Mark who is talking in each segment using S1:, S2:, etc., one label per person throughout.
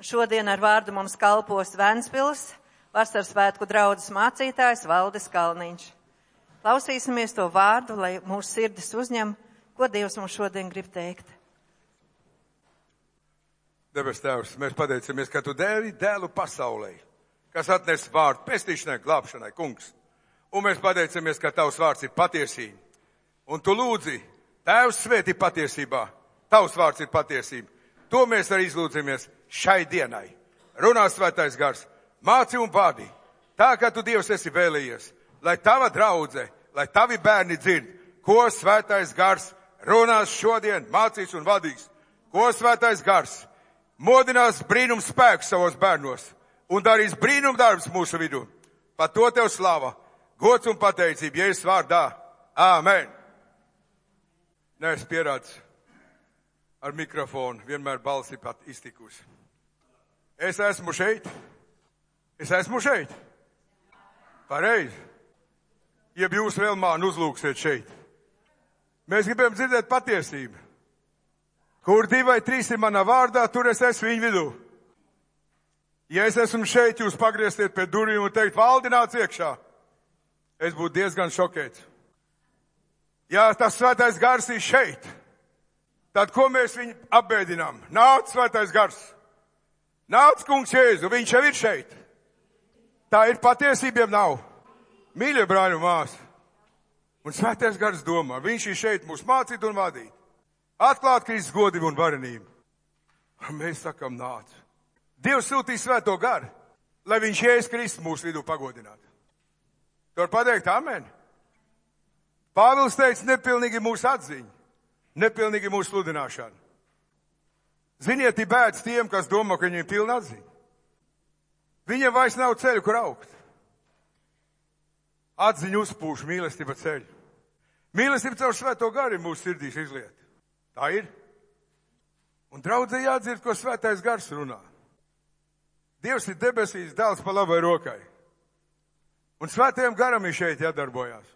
S1: Šodien ar vārdu mums kalpos Ventspils vasaras svētku draudzes mācītājs Valdis Kalniņš. Klausīsimies to vārdu, lai mūsu sirdis uzņem, ko Dievs mums šodien grib teikt.
S2: Debes Tēvs, mēs pateicamies, ka Tu devi dēlu pasaulē, kas atnes vārdu pestīšanai, glābšanai, kungs. Un mēs pateicamies, ka Tavs vārds ir patiesība. Un Tu lūdzi, Tēvs svētī patiesībā, Tavs vārds ir patiesība. To mēs arī izlūdzamies šai dienai. Runā Svētais Gars, māci un vadi, tā kā Tu Dievs esi vēlējies, lai Tava draudze, lai Tavi bērni dzird, ko Svētais Gars runās šodien, mācīs un vadīs. Ko Svētais Gars modinās brīnums spēku savos bērnos un darīs brīnum darbs mūsu vidū. Par to Tev slava, gods un pateicība, Jēzus vārdā. Āmen. Neesmu pierādis ar mikrofonu, vienmēr balsi pat iztikusi. Es esmu šeit. Pareizi. Jeb jūs vēl mani uzlūksiet šeit. Mēs gribam dzirdēt patiesību. Kur 2 vai 3 ir manā vārdā, tur es esmu viņu vidū. Ja es esmu šeit, jūs pagrieztiet pie durvīm un teikt, Valdi, nāc iekšā. Es būtu diezgan šokēts. Ja tas Svētais Gars ir šeit, tad ko mēs viņu apbēdinām? Nāc, Svētais Gars! Nāc, kungs Jēzu, viņš jau ir šeit. Tā ir patiesība, nav. Mīļie brāļi un māsas. Un Svētais Gars domā, viņš ir šeit mūs mācīt un vadīt. Atklāt Kristus godību un varenību. Un mēs sakam, nāc. Dievs sūtīs Svēto Garu, lai viņš Jēzus Kristus mūsu vidū pagodinātu. Tu var pateikt, amen. Pāvils teica, nepilnīgi mūsu atziņa, nepilnīgi mūsu sludināšana. Ziniet, ir bēdas tiem, kas domā, ka viņiem ir pilna atziņa. Viņiem vairs nav ceļu, kur augt. Atziņa uzpūš, mīlestība ceļu. Mīlestība caur Svēto Garu ir mūsu sirdīs izliet. Tā ir. Un draudzē jādzird, ko Svētais Gars runā. Dievs ir debesīs, dēls pa labai rokai. Un Svētajam Garam ir šeit jādarbojās.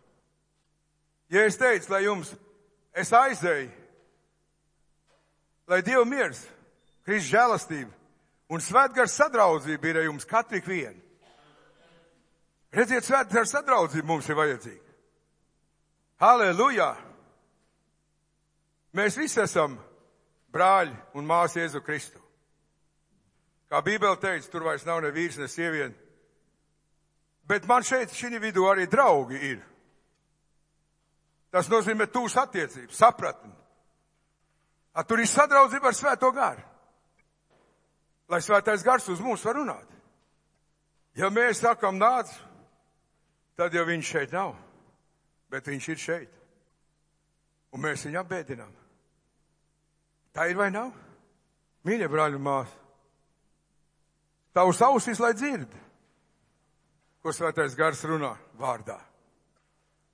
S2: Ja es teicu, lai jums, es aizēju, lai Dievu miers, Kristus žēlastība un Svētgars sadraudzība ir ar jums katru vienu. Redziet, Svētgars sadraudzība mums ir vajadzīga. Halleluja! Mēs visi esam brāļi un māsas Jēzu Kristu. Kā Bībele teica, tur vairs nav ne vīrs, ne sieviete. Bet man šeit, šī vidū arī draugi ir. Tas nozīmē tūs attiecības, sapratni. Tur ir sadraudzība ar Svēto Garu. Lai Svētais Gars uz mums var runāt. Ja mēs sakam nāc, tad jau viņš šeit nav. Bet viņš ir šeit. Un mēs viņu apbēdinām. Tā ir vai nav? Mīļie brāļi un māsas. Tavs ausis, lai dzird, ko Svētais Gars runā vārdā.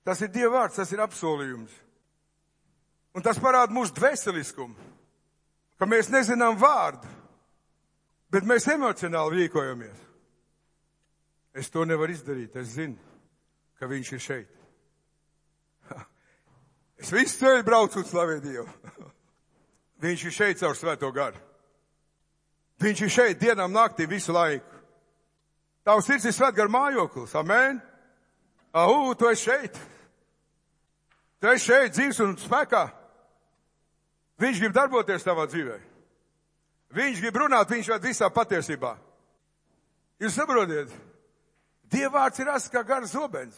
S2: Tas ir Dieva vārds, tas ir apsolījums. Un tas parāda mūsu dvēseliskumu, ka mēs nezinām vārdu, bet mēs emocionāli rīkojamies. Es to nevaru izdarīt, es zinu, ka viņš ir šeit. Es visu ceļu braucu un slavēju Dievu. Viņš ir šeit caur Svēto Garu. Viņš ir šeit dienām naktī visu laiku. Tavs sirds ir Svētgara mājoklis, amen? Tu esi šeit. Tu esi šeit dzīvs un spēkā. Viņš grib darboties tavā dzīvē. Viņš grib runāt, viņš ved visā patiesībā. Jūs saprotiet? Dieva vārds ir asts kā garas zobens,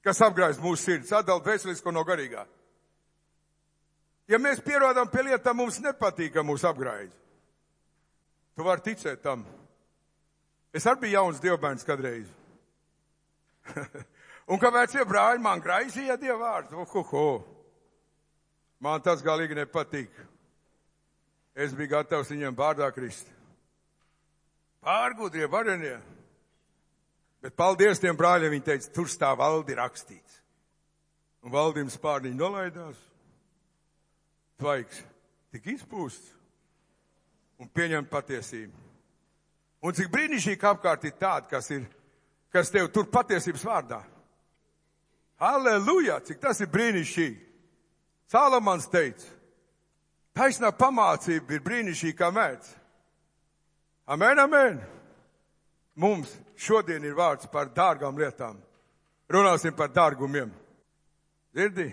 S2: kas apgraiz mūsu sirds, atdala dvēselisko no garīgā. Ja mēs pierodam pie lietām, mums nepatīk, ka mūs apgraiz. Tu vari ticēt tam. Es arī biju jauns dievbērns kadreiz. Un kāpēc tie brāļi man graizīja Dieva vārdu? Man tas galīgi nepatīk. Es biju gatavs viņiem vārdā krist. Pārgudrie, varenie. Bet paldies tiem brāļiem, viņi teica, tur stāv Valdi rakstīts. Un Valdim spārniņi nolaidās. Tvaiks tik izpūsts un pieņem patiesību. Un cik brīnišķīgi apkārt ir tāda, kas tev tur patiesības vārdā. Halleluja, cik tas ir brīnišķīgi. Salamans teica, taisnā pamācība ir brīnišķīga kā mēdz. Amen, amen. Mums šodien ir vārds par dārgām lietām. Runāsim par dārgumiem. Dzirdi?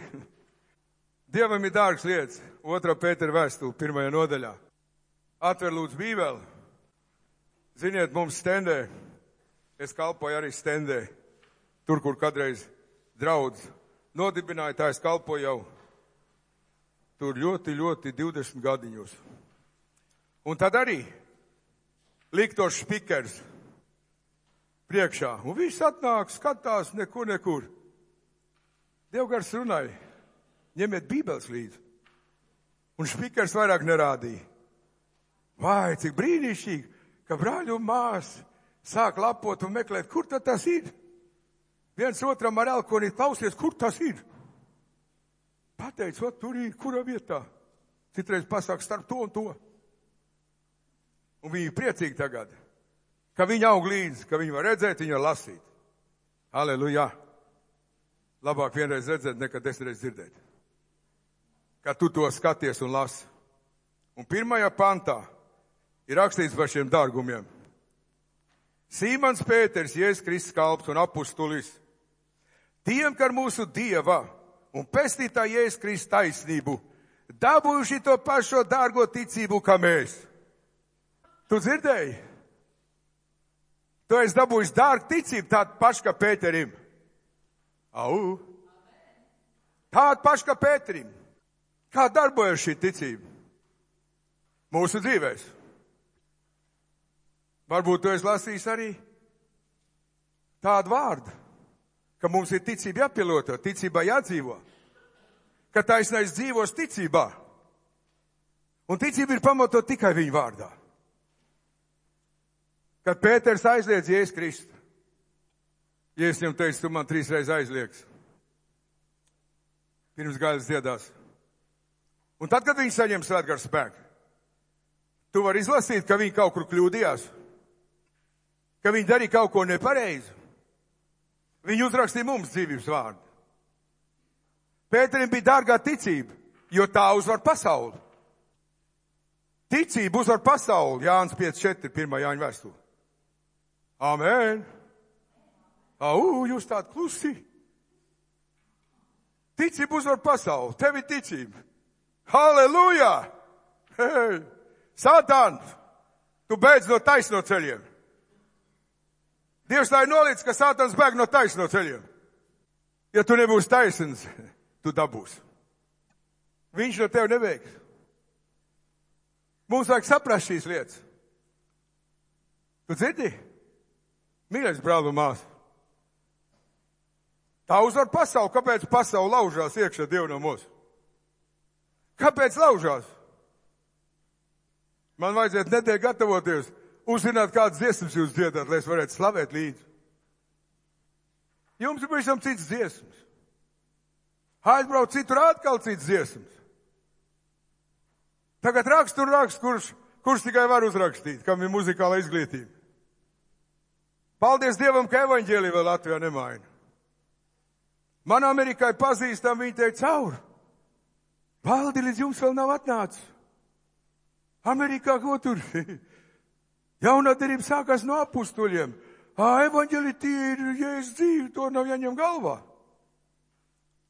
S2: Dievam ir dārgas lietas. 2. Pētera vēstule, 1. nodaļā. Atver lūdzu Bībeli. Ziniet, mums stendē. Es kalpoju arī stendē. Tur, kur kādreiz draudz nodibināja, tā es kalpoju jau. Tur ļoti 20 gadiņos. Un tad arī liktos špikers priekšā. Un viss atnāk, skatās, nekur. Dievgars runāja, ņemiet Bībeles līdzi. Un špikers vairāk nerādīja. Vai, cik brīnišķīgi, ka brāļi un māsas sāk lapot un meklēt, kur tad tas ir. Viens otram ar elkonīt klausies, kur tas ir. Pateic, o, tur ir, kura vietā. Citreiz pasāk starp to un to. Un viņi ir priecīgi tagad, ka viņi aug līdzi, ka viņi var redzēt, viņi var lasīt. Halleluja! Labāk vienreiz redzēt, nekā 10 reizes dzirdēt. Ka tu to skaties un lasi. Un 1. pantā ir rakstīts par šiem dārgumiem. Sīmons Pēters, Jēzus Kristus kalps un apustulis, tiem, kā mūsu Dieva un pestītā Jēzus Kristus taisnību, dabūjuši to pašo dārgo ticību, kā mēs. Tu dzirdēji? Tu esi dabūjis dārgu ticību, tādu pašu kā Pēterim. Au! Tādu pašu kā Pēterim. Kā darbojas šī ticība? Mūsu dzīvēs. Varbūt tu esi lasījis arī tādu vārdu, ka mums ir ticība jāpielieto, ticībā jādzīvo. Ka taisnais dzīvos ticībā. Un ticība ir pamatot tikai viņa vārdā. Kad Pēters aizliedz Jēzus Kristu, Jēzus viņam teica, tu man 3 reizes aizliegsi. Pirms gaidas dziedās. Un tad, kad viņi saņem svētgara spēku, tu vari izlasīt, ka viņi kaut kur kļūdījās, ka viņi darīja kaut ko nepareizi. Viņi uzrakstīja mums dzīvības vārdu. Pēterim bija dārgā ticība, jo tā uzvar pasauli. Ticība uzvar pasauli, Jānis 5.4, 1. Jāņa vēstule. Amen. Au, jūs tādi klusi. Ticība uzvar pasauli, tev ir ticība. Halleluja! Hei! Satan, tu beidz no taisno ceļiem. Dievs tā ir nolicis, ka Sātans bēg no taisno ceļiem. Ja tu nebūsi taisns, tu dabūsi. Viņš no tev neveiks. Mums vajag saprast šīs lietas. Tu dzirdi? Mīļais brāl un māsa. Tā uzvar pasauli. Kāpēc pasauli laužās iekšā Dievu no mūsu? Kāpēc laužās? Man vajadzētu nedēļ gatavoties, uzzināt, kādas dziesmas jūs dziedāt, lai es varētu slavēt līdzi. Jums ir pavisam cits dziesmas. Aizbrauc citur atkal cits dziesmas. Tagad rakst un rakst, kurš tikai var uzrakstīt, kam ir muzikāla izglītība. Paldies Dievam, ka evaņģēlija vēl Latvijā nemaina. Man Amerikai pazīstam, viņi teica cauri. Valdi, līdz jums vēl nav atnācis. Amerikā ko tur? Jaunā derība sākās no apustuļiem. Evaņģēlija tie ir Jēzus dzīve, to nav jāņem galvā.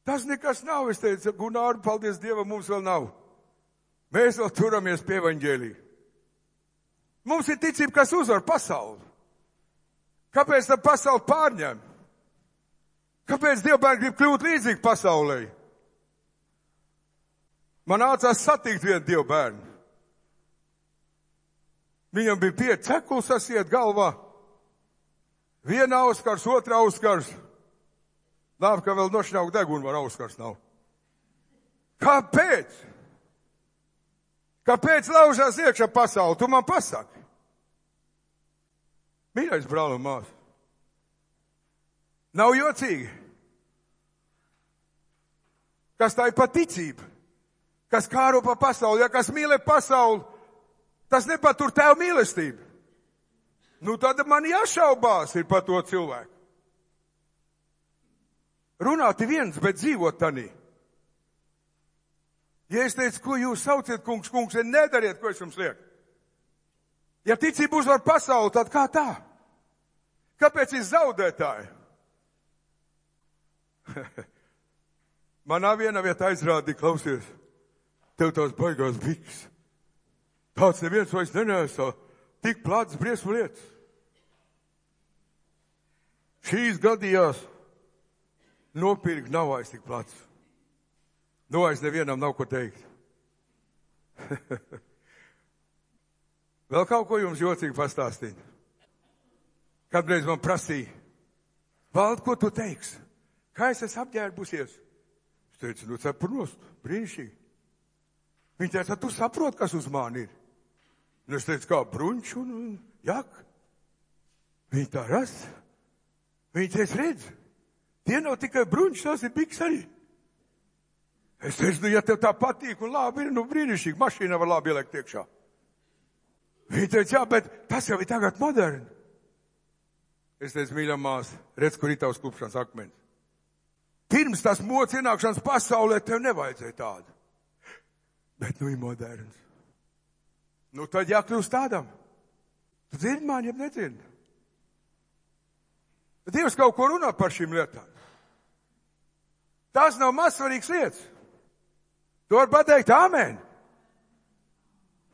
S2: Tas nekas nav, es teicu, Gunār, paldies Dievam, mums vēl nav. Mēs vēl turamies pie evaņģēlija. Mums ir ticība, kas uzvar pasauli. Kāpēc tā pasauli pārņem? Kāpēc Dievbērni grib kļūt līdzīgi pasaulē? Man nācās satikt vienu Dievbērnu. Viņam bija 5 cekuls sasiet galvā. Viena auskars, otra auskars. Labi, ka vēl nošņaukt degunu var auskars nav. Kāpēc? Kāpēc laužās iekšā pasauli? Tu man pasaki. Mīļais brāl un māsa. Nav jocīgi. Kas tā ir paticība? Kas kāro pa pasauli? Ja kas mīlē pasauli, tas nepatur tev mīlestību. Nu tad man jāšaubās ir par to cilvēku. Runāt ir viens, bet dzīvot tanī. Ja es teicu, ko jūs sauciet, kungs, nedariet, ko es jums lieku. Ja ticība uzvar pasauli, tad kā tā? Kāpēc ir zaudētāji? Manā vienā vietā aizrādīja, klausies, tev tās baigās biks. Tāds neviens vairs nenēsā, tik plāts briesmu lietas. Šīs gadījās nopirkt nav vairs tik plāts. Nu, vairs nevienam nav ko teikt. Vēl kaut ko jums jocīgi pastāstīt. Kādreiz man prasīja, Vald, ko tu teiksi? Kā es esmu apģērbusies? Es teicu, nu cepurnost, brīnišķīgi. Viņa teica, tu saproti, kas uz mani ir? Un es teicu, kā bruņš un jak. Viņa tā ras. Viņa teica, redz, tie nav tikai bruņš, tās ir biks arī. Es teicu, nu ja tev tā patīk un labi ir, nu brīnišķīgi, mašīna var labi ielikt iekšā. Viņa teica, jā, bet tas jau ir tagad moderni. Es teicu, mīļā māsa, redz, kur ir tavs klupšanas akmens. Pirms tas mods ienākšanas pasaulē tev nevajadzēja tādu. Bet nu ir moderns. Nu tad jākļūst tādam. Tu dzirdi mani, ja nedzirdi? Dievs kaut ko runā par šīm lietām. Tās nav mazsvarīgas lietas. Tu vari pateikt āmen.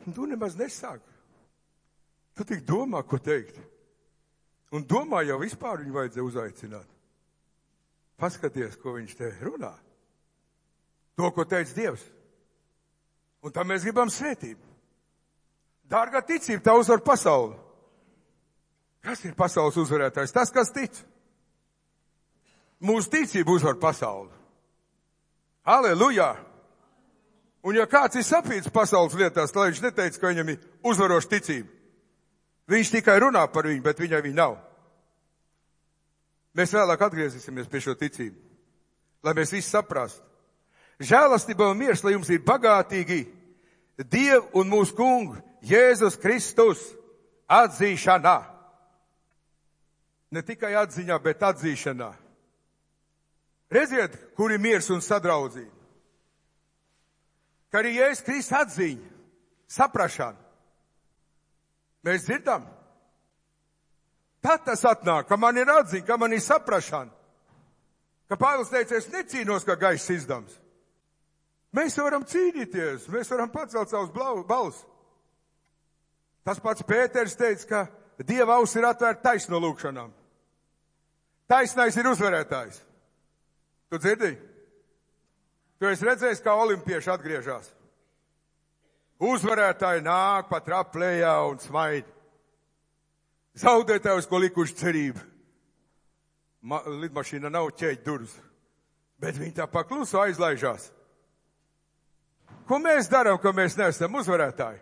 S2: Tu nemaz nesāki. Tu tik domā, ko teikt. Un domā jau vispār viņu vajadzēja uzaicināt. Paskaties, ko viņš te runā. To, ko teica Dievs. Un tā mēs gribam svētību. Dārgā ticība, tā uzvar pasauli. Kas ir pasaules uzvarētājs? Tas, kas tic. Mūsu ticība uzvar pasauli. Halleluja! Un ja kāds ir sapīts pasaules lietās, tad viņš neteica, ka viņam ir uzvaroša ticība. Viņš tikai runā par viņu, bet viņai viņa nav. Mēs vēlāk atgriezīsimies pie šo ticību, lai mēs visi saprastu. Žēlastība un miers, lai jums ir bagātīgi Dievu un mūsu kungu Jēzus Kristus atzīšanā. Ne tikai atziņā, bet atzīšanā. Redziet, kur ir miers un sadraudzība. Ka arī Jēzus Kristus atziņa, saprašana. Mēs dzirdam. Tad tas atnāk, ka man ir atziņa, ka man ir saprašana. Ka Pāvils teica, es necīnos, kā gaiss izdams. Mēs varam cīnīties, mēs varam pacelt savus balus. Tas pats Pēters teica, ka Dieva auss ir atvērta taisno lūkšanām. Taisnais ir uzvarētājs. Tu dzirdi? Tu esi redzējis, kā olimpieši atgriežas. Uzvarētāji nāk pa traplējā un smaid. Zaudētājus, ko likuši cerību. Lidmašīna nav ķēķi durvis, bet viņi tā pakluso aizlaižās. Ko mēs darām, ka mēs neesam uzvarētāji?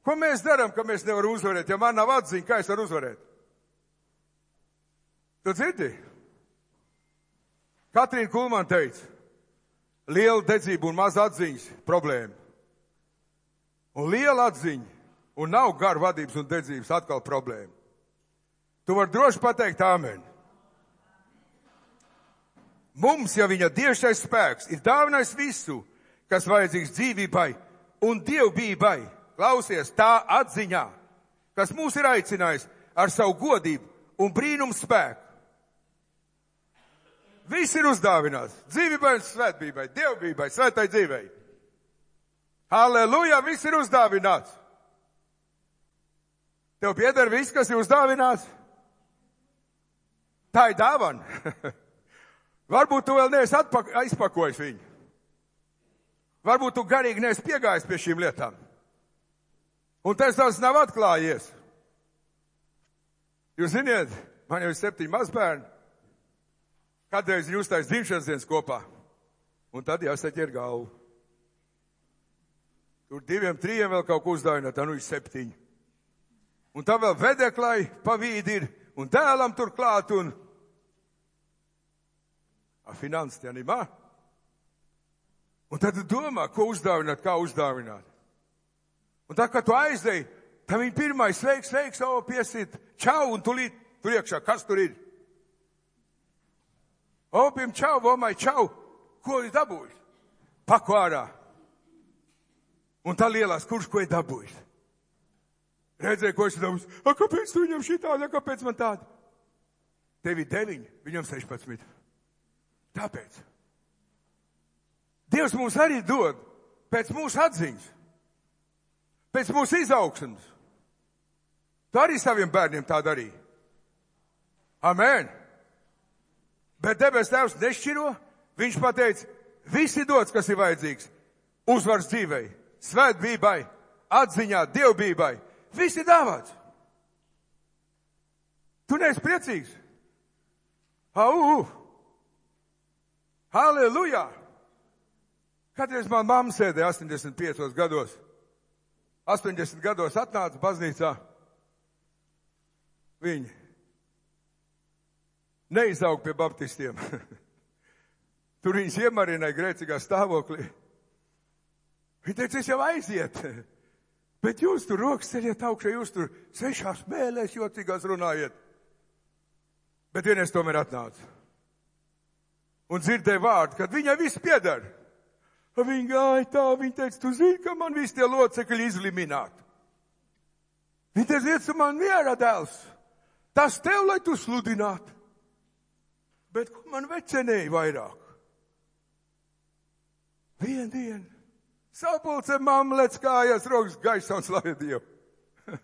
S2: Ko mēs darām, ka mēs nevaram uzvarēt? Ja man nav atziņa, kā es varu uzvarēt? Tu dzirdi? Katrīna Kulman teica, liela dedzība un maz atziņas problēma. Un liela atziņa un nav garu vadības un dedzības atkal problēma. Tu vari droši pateikt āmen. Mums, ja viņa dievšais spēks ir dāvinājis visu, kas vajadzīgs dzīvībai un dievbijai, klausies tā atziņā, kas mūs ir aicinājis ar savu godību un brīnumu spēku. Viss ir uzdāvināts. Dzīvībai un svētbībai, dievbijai, svētai dzīvei. Halleluja, viss ir uzdāvināts. Tev pieder viss, kas ir uzdāvināts? Tā ir dāvana. Varbūt tu vēl neesi aizpakojis viņu. Varbūt tu garīgi neesi piegājis pie šīm lietām. Un tas nav atklājies. Jūs ziniet, man jau ir 7 mazbērni. Kādreiz viņi uztais dzimšanas dienas kopā. Un tad jāsaķer galvu. Tur 2, 3 vēl kaut ko uzdāvināt, tā nu ir 7. Un tā vēl vedeklai pa vīdi ir, un dēlam tur klāt, un finanses tie nimā. Un tad tu domā, ko uzdāvināt, kā uzdāvināt. Un tā, kad tu aizdeji, tad viņi pirmais sveiks, piesit, čau, un tulīt tur iekšā, kas tur ir? Opim čau, vomai čau, ko ir dabūjis? Paku ārā. Un tā lielās, kurš ko ir dabūjis? Redzēju, ko es domāju, kāpēc tu viņam šitādi, kāpēc man tādi? Tev ir 9, viņam 16. Tāpēc. Dievs mums arī dod pēc mūsu atziņas, pēc mūsu izaugsmes. Tu arī saviem bērniem tā darīji. Amen. Bet debes Tēvs nešķiro, viņš pateica, visi dots, kas ir vajadzīgs, uzvars dzīvei, svētbībai, atziņā, dievbībai, visi dāvāts. Tu neesi priecīgs? Halleluja! Kādreiz man mamma sēdēja 85 gados. 80 gados atnāca baznīcā. Viņi neizaug pie baptistiem. Tur viņas iemarināja grēcīgā stāvoklī. Viņa teica, es jau aiziet. Bet jūs tur rokas ceļiet augšā, jūs tur 6 mēlēs jocīgās runājiet. Bet vienreiz tomēr atnāca. Un dzirdēja vārdu, kad viņai viss pieder. Viņa gāja tā, viņa teica, tu zini, ka man visi tie locekļi izlimināti. Viņa teica, iet su man mierā, dēls. Tas tev, lai tu sludinātu. Bet ko man vecenēja vairāk? Vienu dienu. Sapulce mamma lec kājās, rokas gaisā un slavēja Dievu.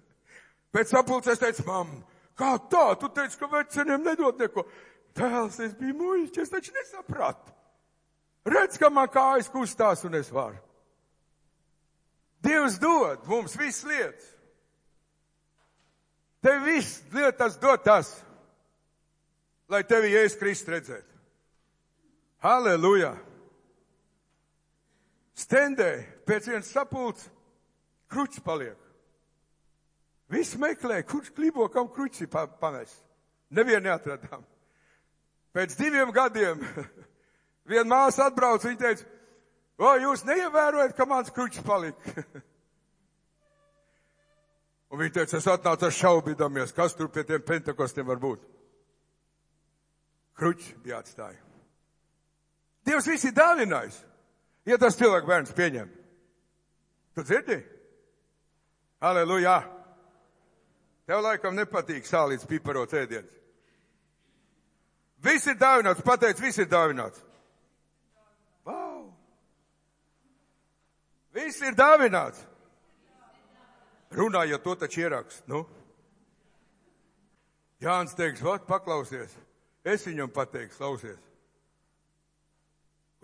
S2: Pēc sapulces teica, mamma, kā tā? Tu teici, ka veceniem nedod neko. Tēls, es biju muļķis, es taču nesapratu. Redz, ka man kājas kustās un es varu. Dievs dod mums visas lietas. Tev viss lietas dod tas, lai tevi Jēzus Kristus redzētu. Halleluja! Stendē pēc vienas sapulces kruķis paliek. Visi meklē, kurš klibo, kam kruķis pamest. Nevienu neatradām. Pēc 2 gadiem viena māsa atbrauca, viņa teica, o, jūs neievērojat, ka mans kruķis palika. Un viņa teica, es atnācu ar šaubīdamies, kas tur pie tiem pentekostiem var būt. Kruķis bija atstāja. Dievs visi dāvinājis, ja tas cilvēku bērns pieņem. Tu dzirdi? Halleluja! Tev laikam nepatīk sālīts piparots ēdiens. Viss ir dāvināts, pateic, viss ir dāvināts. Wow! Viss ir dāvināts. Runājot, to taču ierakst, nu. Jānis teiks, vat, paklausies. Es viņam pateikšu, klausies.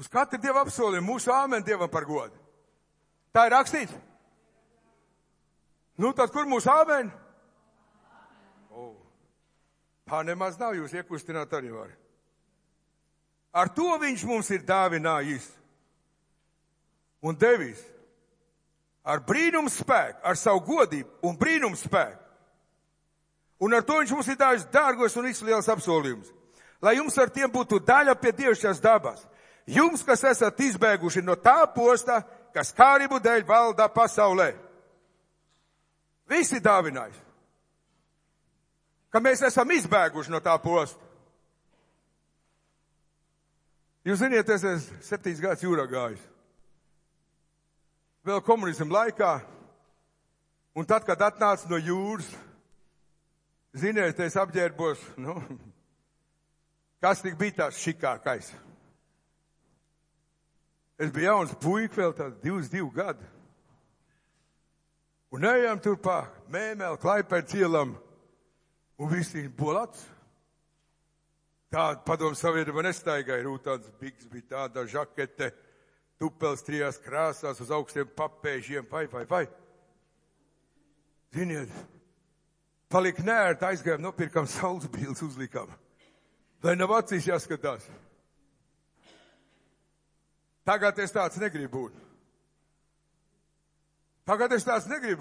S2: Uz katru Dievu apsolījumu mūsu āmen Dievam par godu. Tā ir rakstīts? Nu, tad kur mūsu āmen? Tā nemaz nav, jūs iekustināt arī var. Ar to viņš mums ir dāvinājis un devis ar brīnumu spēku, ar savu godību un brīnumu spēku. Un ar to viņš mums ir dāvis dārgos un izliels apsolījumus, lai jums ar tiem būtu daļa pie dievišķās dabas. Jums, kas esat izbēguši no tā posta, kas kārību dēļ valdā pasaulē. Visi dāvinājis. Ka mēs esam izbēguši no tā posta. Jūs ziniet, es esmu 7 gadus jūrā gājis. Vēl komunismu laikā. Un tad, kad atnāca no jūras, ziniet, es apģērbos, kas tik bija tās šikākais. Es biju jauns puika, vēl tāds 22 gadu. Un ejam tur pa Mēmeli, Klaipēdas ielam. Un visi bolats. Tāda padomu savienība nestaigāja. Rūtāns bigs bija tāda žakete, tupels 3 krāsās uz augstiem papēžiem. Vai. Ziniet, palika nērt, aizgājām, nopirkam saules bildes, uzlikām. Lai nav acīs jāskatās. Tagad es tāds negribu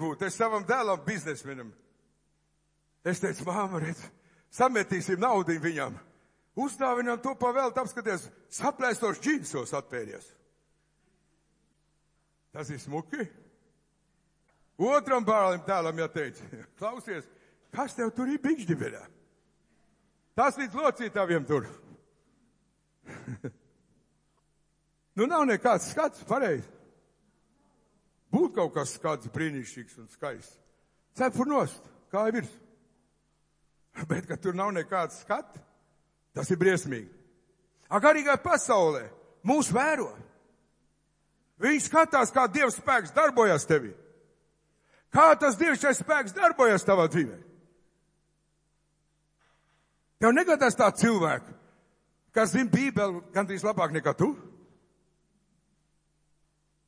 S2: būt. Es savam dēlam biznesmenam. Es teicu, māma, redz, sametīsim naudu viņam. Uzdāvinām to pavēlt, apskaties, saplēstos džinsos atpēries. Tas ir smuki. Otram bērnam tēlam jāteica, klausies, kas tev tur ir bikšģiverā? Tas līdz locītaviem tur. Nav nekāds skats, pareizi. Būt kaut kas skats brīnišķīgs un skaists. cepur nost, kāja virs. Bet, ka tur nav nekāds skats, tas ir briesmīgi. Garīgā pasaulē mūs vēro. Viņi skatās, kā Dieva spēks darbojas tevī. Kā tas Dievšķais spēks darbojas tavā dzīvē. Tev negadās tā cilvēku, kas zina Bībeli gandrīz labāk nekā tu?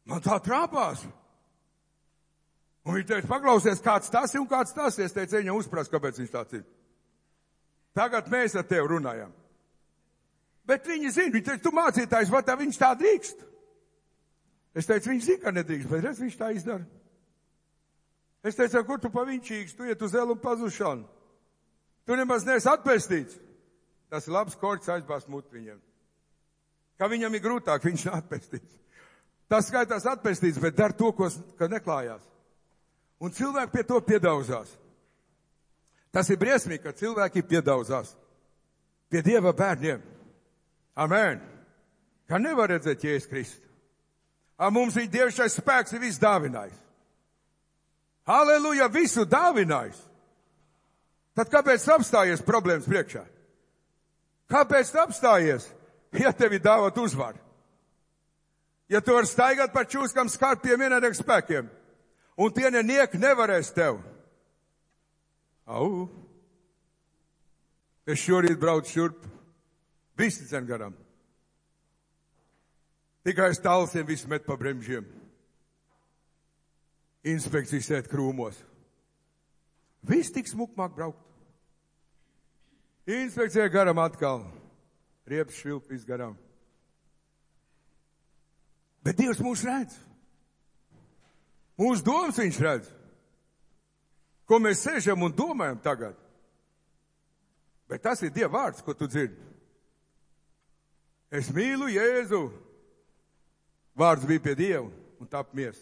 S2: Man tā trāpās. Un viņi teica, paklausies, kāds tas ir un kāds tas ir. Es teicu, viņam uzprast, kāpēc viņš tāds ir. Tagad mēs ar tevi runājam. Bet viņi zina, viņi teica, tu mācītājs, vai tā viņš tā drīkst? Es teicu, viņš zina, ka nedrīkst, bet redz, viņš tā izdara. Es teicu, kur tu paviņčīgs, tu iet uz elu un pazušanu. Tu nemaz neesi atpestīts. Tas ir labs korķis aizbāzt muti viņam. Kā viņam ir grūtāk, viņš nav atpestīts. Tas skaitās atpestīts, bet dar to, ko neklājās. Un cilvēki pie to piedauzās. Tas ir briesmīgi, ka cilvēki piedauzās pie Dieva bērniem. Amen. Kā nevar redzēt Jēzus Kristu. Mums ir Dievšais spēks, ir viss dāvinājis. Halleluja, visu dāvinājis. Tad kāpēc apstājies problēmas priekšā? Kāpēc apstājies, ja tevi dāvāt uzvaru? Ja tu vari staigāt par čūskam skarpiem vienādiem spēkiem, un tie nenieki nevarēs tev. Au! Es šorīt braucu šurp, visi dzen garām. Tikai es tālsiem visu met pa bremžiem. Inspekcijas sēt krūmos. Viss tik smukmāk braukt. Inspekcija garam atkal. Riepas švilpīs garām. Bet Dievs mūs redz. Mūsu domas viņš redz. Ko mēs sēžam un domājam tagad. Bet tas ir Dieva vārds, ko tu dzirdi. Es mīlu Jēzu. Vārds bija pie Dieva un tap mies.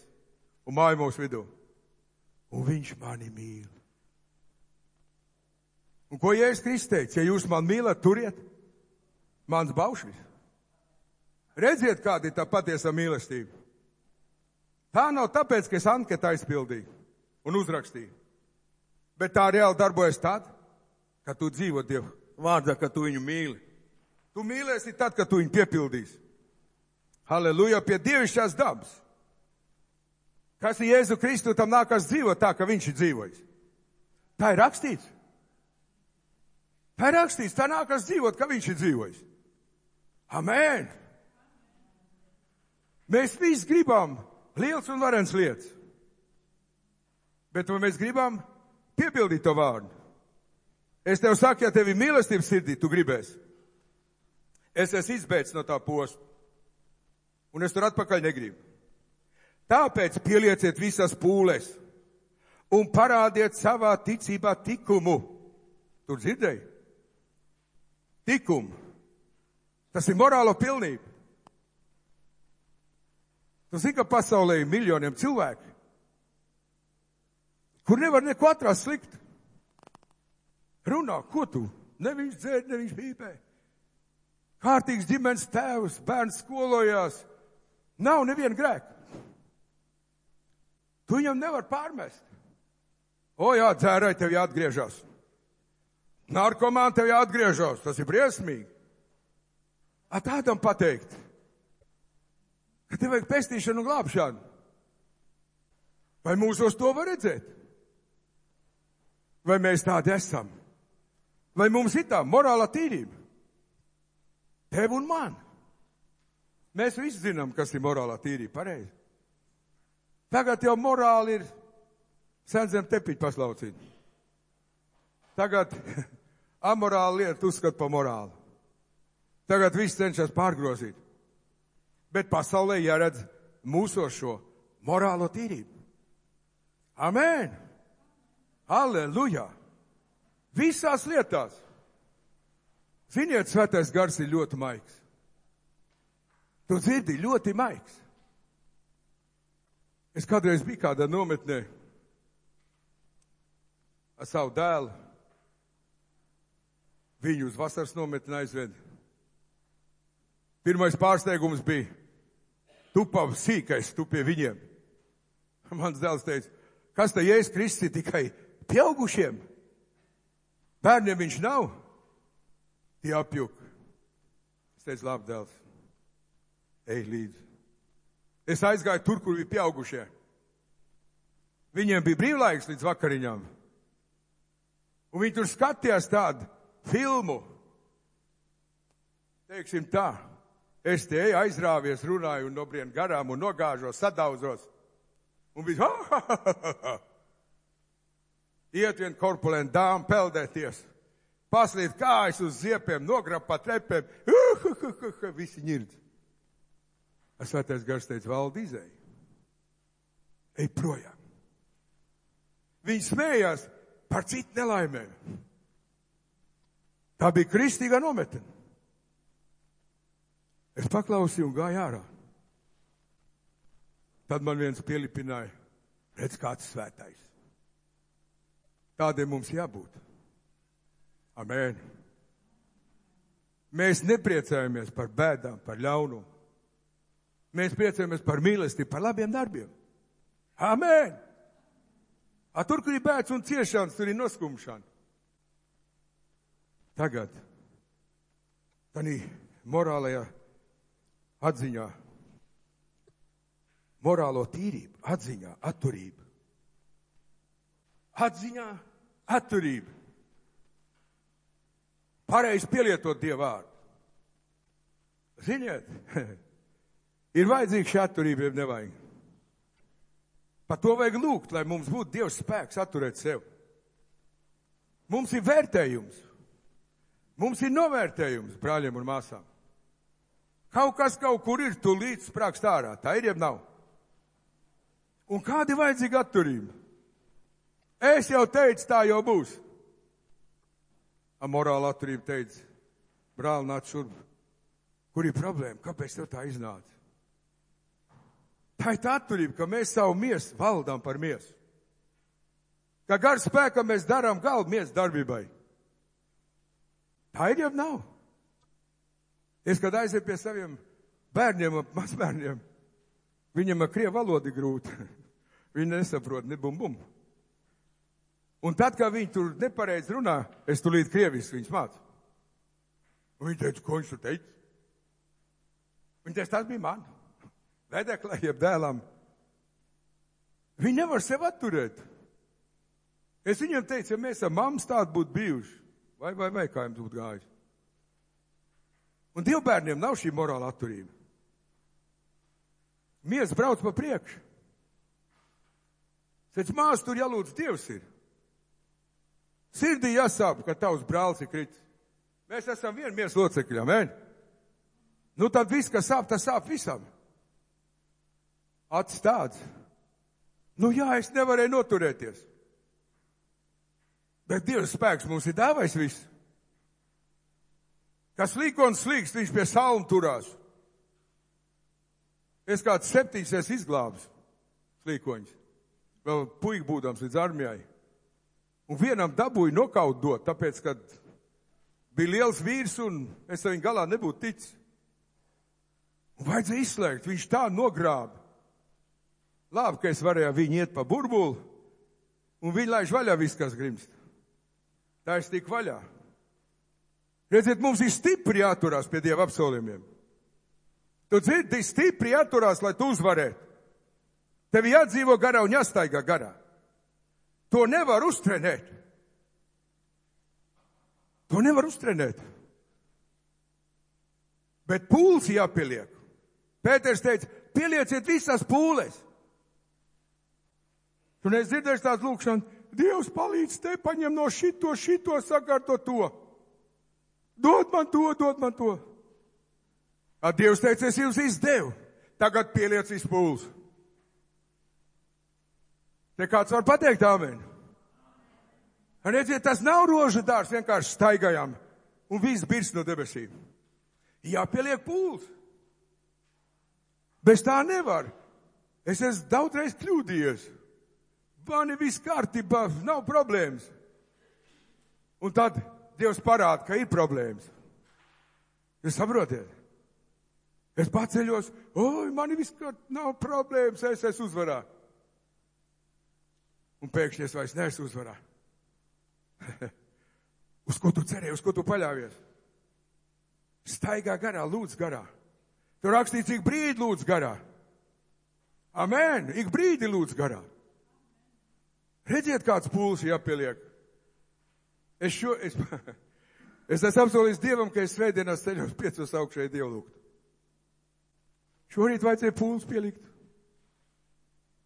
S2: Un māja mūsu vidū. Un viņš mani mīl. Un ko Jēzus Kristus teica? Ja jūs man mīlat, turiet mans baušļus. Redziet, kāda ir tā patiesa mīlestība. Tā nav tāpēc, ka es anketu aizpildīju un uzrakstīju. Bet tā reāli darbojas tad, kad tu dzīvo Dievu vārdā, kad tu viņu mīli. Tu mīlēsi tad, kad tu viņu piepildīsi. Halleluja, pie dievišķās dabas. Kas ir Jēzu Kristu, tam nākas dzīvot tā, ka viņš ir dzīvojis. Tā ir rakstīts. Tā ir rakstīts, tā nākas dzīvot, ka viņš ir dzīvojis. Amen. Mēs visi gribam liels un varens lietas. Bet vai mēs gribam piepildīt to vārdu? Es tev saku, ja tev ir mīlestības sirdī, tu gribēsi. Es esmu izbēdz no tā posta. Un es tur atpakaļ negribu. Tāpēc pielieciet visas pūles un parādiet savā ticībā tikumu. Tur dzirdēji? Tikumu. Tas ir morālo pilnība. Tu zini, ka pasaulē ir miljoniem cilvēku, kur nevar neko atrast sliktu. Runā, ko tu? Ne viņš dzēr, ne viņš pīpē. Kārtīgs ģimenes tēvs, bērns skolojās. Nav neviena grēka. Tu viņam nevar pārmest. O jā, dzērai tev jāatgriežas. Narkomāni tev jāatgriežas. Tas ir briesmīgi. Tādam pateikt, ka tev vajag pestīšanu un glābšanu. Vai mūsos to var redzēt? Vai mēs tādi esam? Vai mums ir tā morāla tīrība? Tev un man. Mēs visi zinām, kas ir morālā tīrība, pareizi. Tagad jau morāli ir sen zem tepiņu paslaucīt. Tagad amorāli lieta uzskat pa morāli. Tagad viss cenšas pārgrozīt. Bet pasaulē jāredz mūsos šo morālo tīrību. Amen! Halleluja! Visās lietās. Ziniet, svētais gars ir ļoti maigs. Tu dzirdi, ļoti maigs. Es kādreiz biju kādā nometnē ar savu dēlu. Viņu uz vasaras nometni aizved. Pirmais pārsteigums bija, tu pavs sīkais, tu pie viņiem. Mans dēls teica, Kas te Jēzus Kristus ir tikai pieaugušiem? Bērniem viņš nav. Tie apjuk. Es teicu, labi, dēls, ej līdzi. Es aizgāju tur, kur bija pieaugušie. Viņiem bija brīvlaiks līdz vakariņām. Un viņi tur skatījās tādu filmu. Teiksim tā, es te eju, aizrāvies, runāju un nobrien garām un nogāžos, sadauzos. Un viss, iet vien korpulenta dāma peldēties, paslīt kājas uz ziepiem, nograb pa trepēm, visi ņirdz. Svētais Gars teica, Valdi, izēj. Ej projām. Viņi smējās par citu nelaimēm. Tā bija kristīgā nometne. Es paklausīju un gāju ārā. Tad man viens pielipināja, redz, kāds svētais. Tādiem mums jābūt. Amen. Mēs nepriecājamies par bēdām, par ļaunumu. Mēs priecājamies par mīlestību, par labiem darbiem. Amen. Tur, kur ir bēds un ciešanas, tur ir noskumšana. Tagad, tādā morālajā atziņā, morālo tīrību, atziņā, atturību. Atziņā, atturību. Pareizi pielietot Dievu vārdu. Ziniet, ir vajadzīga šī atturība, ja nevajag. Par to vajag lūgt, lai mums būtu Dievs spēks atturēt sev. Mums ir vērtējums. Mums ir novērtējums, brāļiem un māsām. Kaut kas kaut kur ir, tu līdz sprākst ārā. Tā ir, jeb nav. Un kāda ir vajadzīga atturība? Es jau teicu, tā jau būs. Morāla atturība teica, brāl, nāc šurp. Kur ir problēma? Kāpēc tev tā iznāca? Tā ir tā atturība, ka mēs savu miesu valdām par miesu. Ka gar spēkam mēs darām galvu miesu darbībai. Tā ir, jau nav. Es, kad aizēju pie saviem bērniem, mazbērniem, viņam ar krievu valodu ir grūti. Viņi nesaprot, ne bum bum. Un tad, kad viņi tur nepareizi runā, es tulīt krieviski viņus mācu. Un viņi teica, ko viņš tur teica? Viņi teica, tas bija man. Vedeklē, jeb dēlam. Viņi nevar sev atturēt. Es viņiem teicu, ja mēs ar mammas tādu būtu bijuši, vai kā jums būtu gājis. Un dievbērniem nav šī morāla atturība. Mies brauc pa priekšu. Sēc mās tur jālūdz Dievs ir. Sirdī jāsāp, ka tavs brālis ir kritis. Mēs esam viena miesa locekļi, amen? Nu tad viss, kas sāp, tas sāp visam. Acis tāds. Nu jā, es nevarēju noturēties. Bet Dievs spēks mums ir dāvājis viss. Kas līkons slīkst, viņš pie salmu turās. Es kāds 7 izglābs slīkoņus. Vēl puika būdams līdz armijai. Un vienam dabūju nokaut dot, tāpēc, kad bija liels vīrs un es ar viņu galā nebūtu ticis. Un vajadzēja izslēgt, viņš tā nogrāba. Labi, ka es varēju viņu iet pa burbuli un viņi laiž vaļā viss, kas grimst. Tā es tik vaļā. Redziet, mums ir stipri jāturās pie Dieva apsolījumiem. Tu dzirdi, stipri jāturās, lai tu uzvarētu. Tev jādzīvo garā un jāstaigā garā. To nevar uztrenēt. To nevar uztrenēt. Bet pūles jāpieliek. Pēters teica, pielieciet visas pūles. Tu nedzirdēsi tās lūkšanas, Dievs palīdz te, paņem no šito, sakārto to. Dod man to. Dievs teica, es jums izdevu. Tagad pieliec visu pūles. Te kāds var pateikt amen. Redziet, tas nav rožu dārs, vienkārši staigājām un viss birst no debesīm. Jāpieliek pūles. Bez tā nevar. Es esmu daudzreiz kļūdījies. Man ir viss kārtībā, nav problēmas. Un tad Dievs parāda, ka ir problēmas. Jūs saprotiet? Es paceļos, man ir viss kārtībā, nav problēmas, es esmu uzvarā. Un pēkšņi es vairs neesmu uzvarā. Uz ko tu cerēji, uz ko tu paļāvies? Staigā garā, lūdz garā. Tur rakstīts, ik brīdi lūdz garā. Amen, ik brīdi lūdz garā. Redziet, kāds pūlis jāpieliek. Es esmu apsolījis Dievam, ka es svētdienās ceļos 5 augšēji Dievu lūgt. Šorīt vajadzēja pūlis pielikt.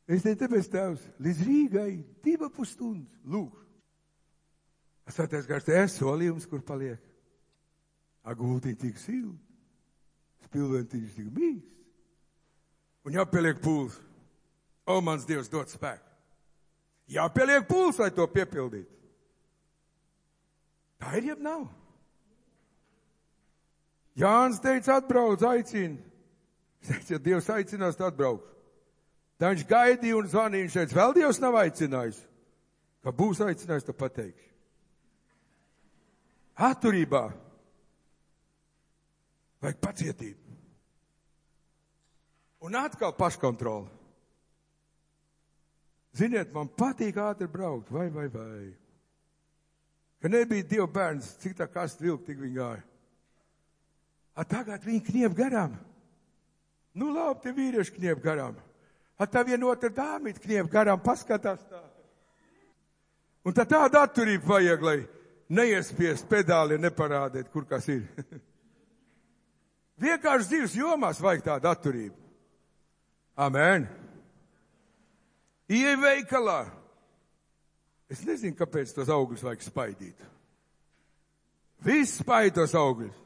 S2: Es teicu, tāpēc Tēvs, līdz Rīgai 2,5 stundas lūgšu. Svētais Gars, es solījums, kur paliek. Agultiņ tik silti, spilventiņš tik mīksts. Un jāpieliek pūlis. O, mans Dievs, dod spēku. Jāpieliek pūlis, lai to piepildītu. Tā ir jeb nav. Jānis teica, atbrauc, aicina. Es teicu, ja Dievs aicinās, tad atbraukšu. Tā viņš gaidīja un zvanīja, viņš teica, vēl Dievs nav aicinājis. Ka būs aicinājis, tad pateikšu. Atturībā vajag pacietību. Un atkal paškontrola. Ziniet, man patīk ātri braukt, vai. Ka nebija Dieva bērns, cik tā kasta vilka, tik viņi gāja. Tagad viņi kniep garām. Nu labi, tie vīrieši kniep garām. Tā vienotra dāmīt kniep garām, paskatās tā. Un tā tāda atturība vajag, lai neiespiest pedāli, neparādēt, kur kas ir. Vienkārši dzīves jomās vajag tādu atturību. Amen. Ieej veikalā. Es nezinu, kāpēc tos augļus vajag spaidīt. Viss spaid tos augļus.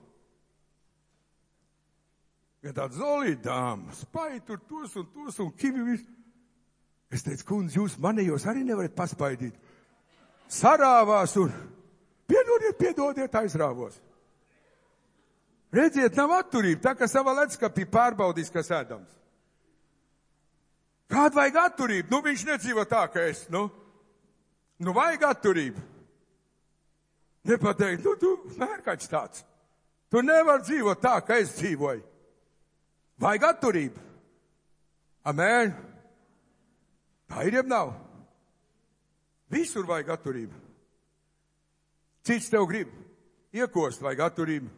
S2: Ja tāds zolīta dāma, spaid tur tos un kivi visu. Es teicu, kundze, jūs manējos arī nevarat paspaidīt. Sarāvās un piedodiet, aizrāvos. Redziet, nav atturība, tā kā savā ledskapī pārbaudīs, kas ēdams. Kāda vajag atturību? Nu, viņš nedzīvo tā, ka es, nu vajag atturību. Nepateikt, tu mērkaķis tāds. Tu nevar dzīvot tā, ka es dzīvoju. Vajag atturību. Amen. Tā ir jeb nav. Visur vajag atturību. Cits tev grib iekost, vajag atturību.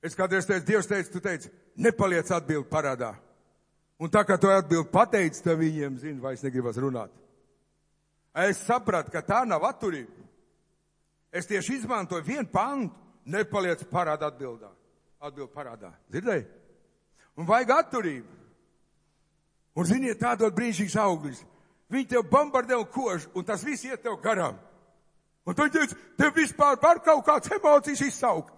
S2: Es kādreiz teicu, Dievs teica, tu teici, nepaliec atbildi parādā. Un tā kā to atbildi pateici, tad viņiem, vairs negribas runāt. Es sapratu, ka tā nav atturība. Es tieši izmantoju vienu pantu, nepaliec parādā atbildā. Atbildi parādā. Dzirdēji? Un vajag atturību. Un ziniet, tādot brīnišķīgs auglis. Viņi tev bombardē un kož, un tas viss iet tev garām. Un tu teici, tev vispār var kaut kāds emocijas izsaukt.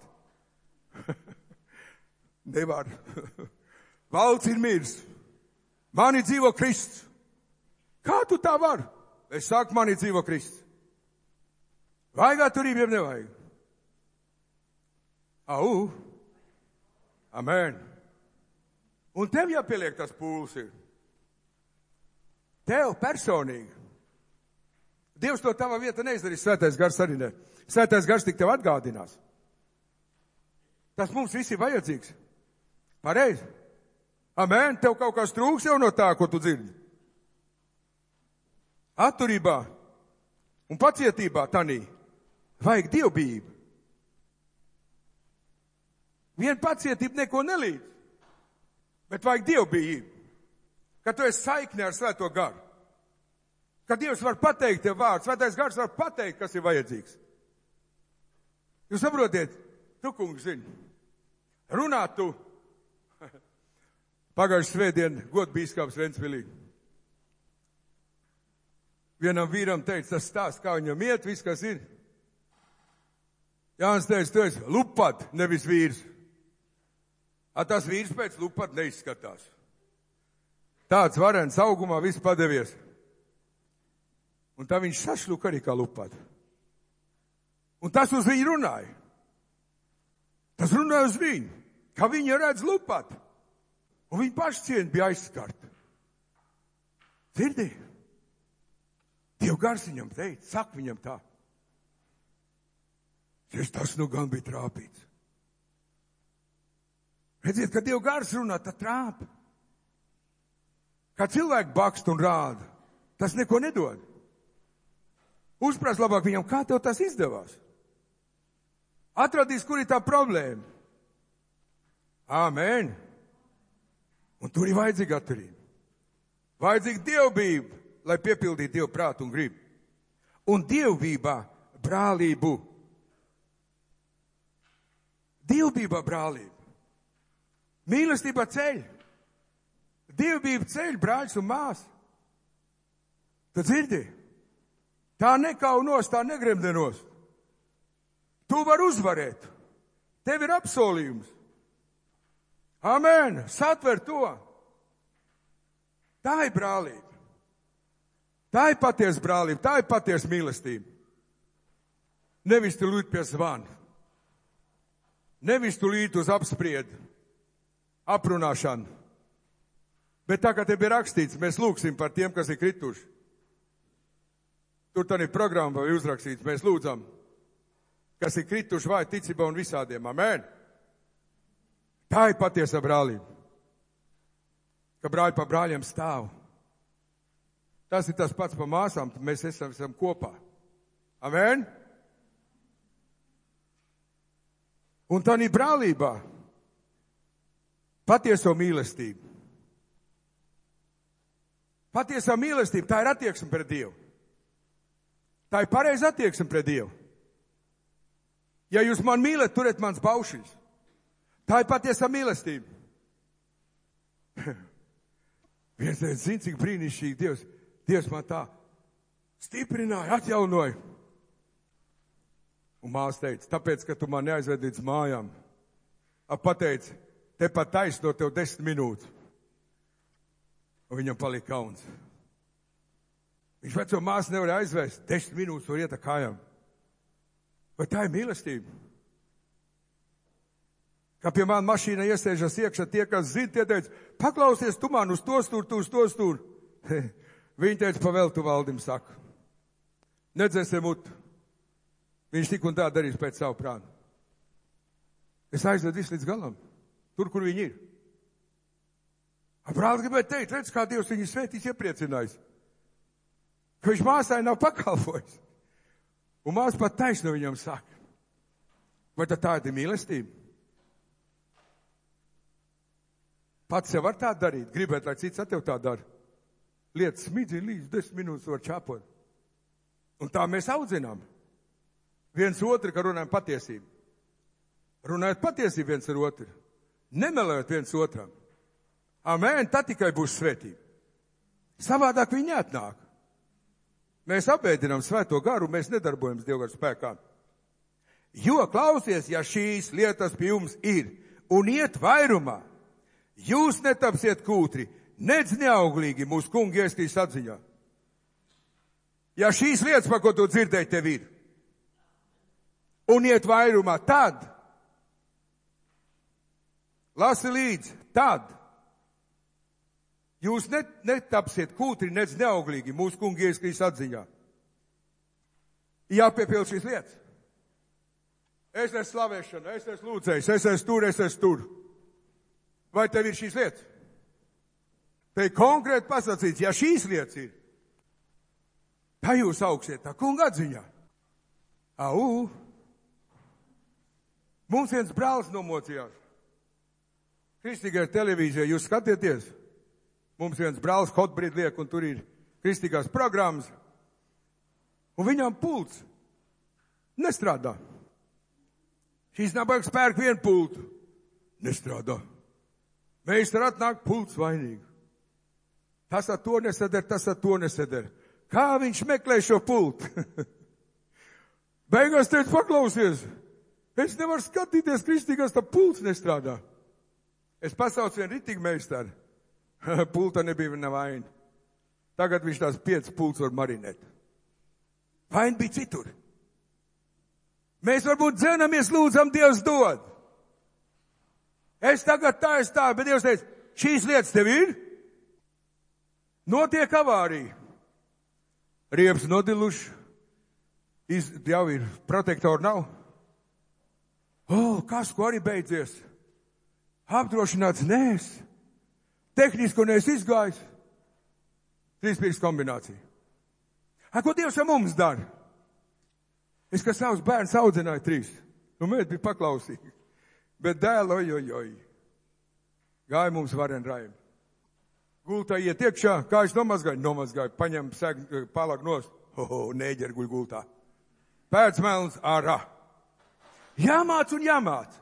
S2: Nevar. Valds ir mirs. Mani dzīvo Kristus. Kā tu tā var? Es saku, mani dzīvo Kristus. Vajag atturību, jeb nevajag? Au. Amen. Un tev jāpieliek tas pūlis ir. Tev personīgi. Dievs to tava vieta neizdarīs, Svētais Gars arī ne. Svētais Gars tik tev atgādinās. Tas mums viss ir vajadzīgs. Pareizi. Amen. Tev kaut kas trūks jau no tā, ko tu dzirdi. Atturībā un pacietībā tanī vajag dievbijību. Vien pacietība neko nelīdz, bet vajag dievbijību. Kad tu esi saiknē ar Svēto Garu. Kad Dievs var pateikt tev vārdu, Svētais Gars var pateikt, kas ir vajadzīgs. Jūs saprotiet, tu, kungs, zini, runāt tu. Pagājušajā svētdien godbīskaps Ventspilī. Vienam vīram teica, tas stāsts, kā viņam iet, viss, kas ir. Jānis teica, tu esi lupat, nevis vīrs. Tas vīrs pēc lupat neizskatās. Tāds varens augumā viss padevies. Un tā viņš sašluka arī kā lupat. Un tas uz viņu runāja. Tas runāja uz viņu, ka viņa redz lupat. Un viņa pašcieņa bija aizskarta. Dzirdi? Dieva Gars viņam teica, saka viņam tā. Tas nu gan bija trāpīts. Redziet, kad Dieva Gars runā, tad trāpa. Kā cilvēki bakst un rāda. Tas neko nedod. Uzprās labāk viņam, kā tev tas izdevās. Atradīs, kur ir tā problēma. Āmen. Un tur ir vajadzīga atturība. Vajadzīga dievbība, lai piepildītu Dievu prātu un gribu. Un dievbībā brālību. Dievbībā brālību. Mīlestībā ceļ. Dievbība ceļ, brāļus un māsas. Tu dzirdi? Tā nekaunos, tā negremdenos. Tu vari uzvarēt. Tev ir apsolījums. Amen. Satver to. Tā ir brālība. Tā ir patiesa brālība. Tā ir patiesa mīlestība. Nevis tu lūdz pie zvana. Nevis tu līdz uz apspriedu. Aprunāšanu. Bet tā kā te bija rakstīts, mēs lūgsim par tiem, kas ir krituši. Tur tā ir programma vai uzrakstīts, mēs lūdzam, kas ir krituši vai ticībā un visādiem. Amen. Tā ir patiesa brālība. Ka brāļi pa brāļiem stāv. Tas ir tas pats pa māsām, mēs esam kopā. Amen. Un tā ir brālībā patieso mīlestību. Patiesā mīlestība, tā ir attieksme pret Dievu. Tā ir pareiza attieksme pret Dievu. Ja jūs man mīlat, turiet mans baušļus. Tā ir patiesā mīlestība. Viens teica, zin, cik brīnišķīgi Dievs. Dievs man tā stiprināja, atjaunoja. Un māsa teica, tāpēc, ka tu man neaizved līdz mājām. Pateica, te pat taisno tev 10 minūtes. Un viņam palika kauns. Viņš veco māsu nevar aizvest. 10 minūtes var iet ar kājām. Vai tā ir mīlestība? Kā pie man mašīna iesēžas iekšā tie, kas zina, tie teica, paklausies tu man uz to stūri, tu uz to stūri. Viņi teica, pavēl tu valdim saka. Nedzēsim mutu. Viņš tik un tā darīs pēc savu prātu. Es aizvedu visu līdz galam. Tur, kur viņi ir. Brālis gribēja teikt, redz, kā Dievs viņu svētīs iepriecinājis. Ka viņš māsai nav pakalpojis. Un māsa pat taisno viņam saka. Vai tā ir mīlestība? Pats sev var tā darīt. Gribēt, lai cits ar tev tā dara. Lietas smidzina līdz 10 minūtes var čāpot. Un tā mēs audzinām. Viens otru, ka runājam patiesību. Runājot patiesību viens ar otru. Nemelējot viens otram. Amen, tā tikai būs svētība. Savādāk viņi neatnāk. Mēs apēdinām svēto garu, mēs nedarbojamies Dieva garu spēkā. Jo, klausies, ja šīs lietas pie jums ir un iet vairumā, jūs netapsiet kūtri, nedz neauglīgi mūsu kungi Jēzus atziņā. Ja šīs lietas, par ko tu dzirdēji, tev ir, un iet vairumā, tad, lasi līdzi, tad, jūs netapsiet kūtri, nedz neauglīgi mūsu kungi Jēzus atziņā. Jāpiepild šīs lietas. Es esmu slavēšana, es esmu lūdzējs, es esmu tur. Vai tev ir šīs lietas? Te ir konkrēti pasacīts, ja šīs lietas ir, tā jūs augsiet tā kunga atziņā. Au! Mums viens brālis nomocījās. Kristīgajā televīzijā jūs skatieties. Mums viens brālis Hotbrīd liek, un tur ir kristīgās programmas. Un viņam pults nestrādā. Šīs nabaga spērk vienu pultu. Nestrādā. Meistar atnāk pults vainīgi. Tas ar to nesadar, tas ar to nesadar. Kā viņš meklē šo pultu? Beigās teica, paklausies. Es nevaru skatīties kristīgās, tā pults nestrādā. Es pasaucu vienu ritīgi meistaru. Pulta nebija viņa vaina. Tagad viņš tās 5 pults var marinēt. Vaina bija citur. Mēs varbūt dzenamies, lūdzam, Dievs dod. Es tagad tā, bet Dievs teica, šīs lietas tev ir? Notiek avārija. Riepas nodiluši. Jau ir protektori nav. Kas, ko arī beidzies? Apdrošināts nēs. Tehnisko neesi izgājis. 3 pirkstu kombinācija. Ko Dievs ar mums dara? Es, kā savus bērnus audzināju 3. Mēģi bija paklausīgi. Bet dēl, oj. Gāja mums varen raimi. Gultā iet iekšā, kā es nomazgāju, paņem palak nost. Nēģeri guļ gultā. Pēc melns ārā. Jāmāc un jāmāc.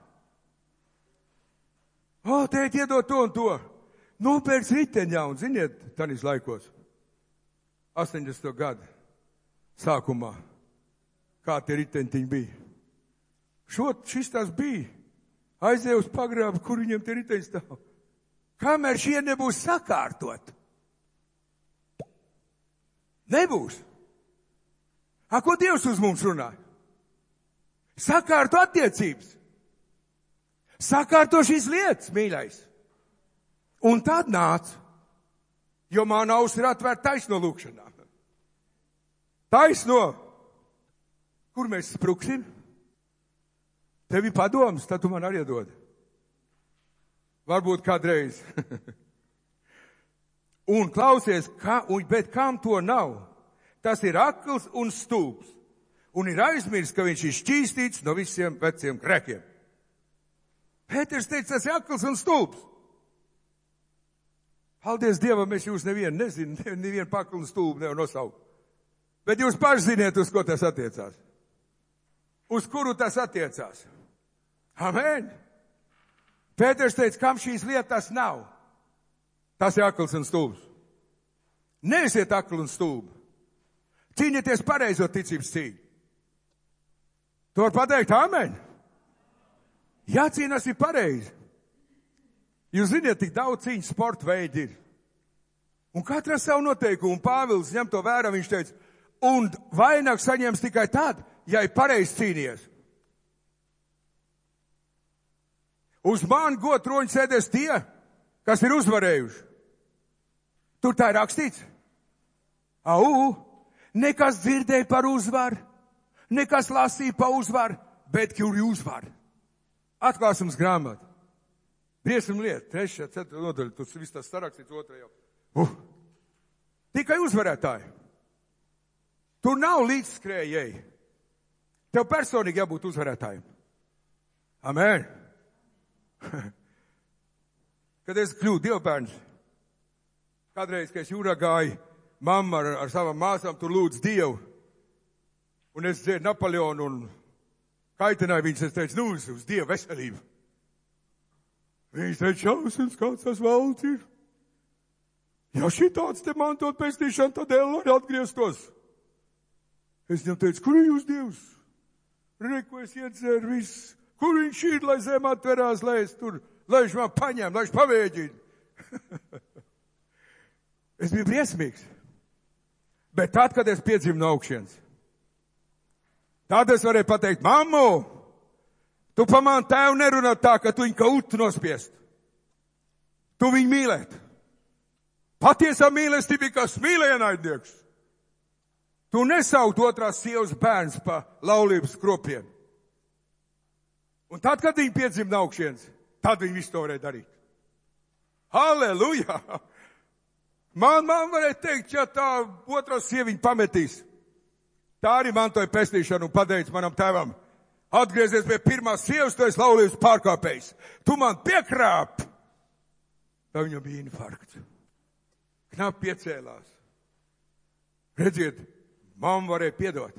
S2: Tēt, iedod to un to. Nopērks riteņā un, ziniet, tanis laikos, 80. gadu sākumā, kā tie riteņtiņi bija. Šis tās bija. Aizēja uz pagrābu, kur viņiem tie riteņi stāv. Kamēr šie nebūs sakārtot. Nebūs. Ko Dievs uz mums runā? Sakārto attiecības. Sakārto šīs lietas, mīļais. Un tad nāc, jo man auss ir atvērta taisno lūkšanā. Taisno. Kur mēs spruksim? Tev ir padoms, tad tu man arī dod. Varbūt kādreiz. Un klausies, bet kam to nav? Tas ir akls un stulbs. Un ir aizmirst, ka viņš ir šķīstīts no visiem veciem grēkiem. Pēters teica, tas ir akls un stulbs. Paldies Dievam, es jūs nevienu paklu un stulbu nevaru nosaukt. Bet jūs paši ziniet, uz ko tas attiecās. Uz kuru tas attiecās. Amen. Pēters teica, kam šīs lietas nav? Tas ir akls un stulbs. Neesiet akli un stulbi. Cīnieties pareizo ticības cīņu. Tu var pateikt, amen. Jācīnās ir pareizi. Jūs ziniet, tik daudz cīņu sporta veidi ir. Un katra savu noteikumu. Pāvils ņem to vērā, viņš teica, un vainagu saņems tikai tad, ja ir pareizi cīnījies. Uz mani godtroņa sēdēs tie, kas ir uzvarējuši. Tur tā ir rakstīts. Nekas dzirdēja par uzvaru, nekas lasīja par uzvaru, bet kur ir uzvaru. Atklāsums grāmatu. Briesim lieta, 3. 4. nodaļa, tas viss tas sarakstīts 2. jau. Tikai uzvarētāji. Tur nav līdzskrējēji. Tev personīgi jābūt uzvarētājiem. Amen. Kad es kļūtu dievbērns, kādreiz, kad es jūrā gāju, mamma ar savām māsām tur lūdz Dievu, un es dzēru Napoleonu un kaitināju viņus, es teicu, uz Dievu veselību. Viņš teica, šausmas, kāds tas valds ir. Ja šitāds te mantot pestīšanu, tad lai atgrieztos. Es viņam teicu, kur ir jūs Dievs? Reku es iedzeru viss. Kur viņš ir, lai zem atverās, lai es tur, lai viņš man paņem, lai viņš pavēģina. Es biju briesmīgs. Bet tad, kad es piedzimu no augšienes, tad es varēju pateikt, mammu, tu pa man tēvu nerunā tā, ka tu viņu kā utu nospiest. Tu viņu mīlēt. Patiesā mīlestība ir kā smīlēnaidnieks. Tu nesaukt otrās sievas bērns pa laulības kropiem. Un tad, kad viņi piedzima no augšienes, tad viņi visu to varēja darīt. Halleluja! Man varēja teikt, ja tā otrā sieviņa pametīs. Tā arī mantoja pestīšanu un pateica manam tēvam, atgriezies pie pirmās sievas, tu esi laulības pārkāpējs. Tu man piekrāp. Tā viņam bija infarkts. Knap piecēlās. Redziet, mamma varēja piedot.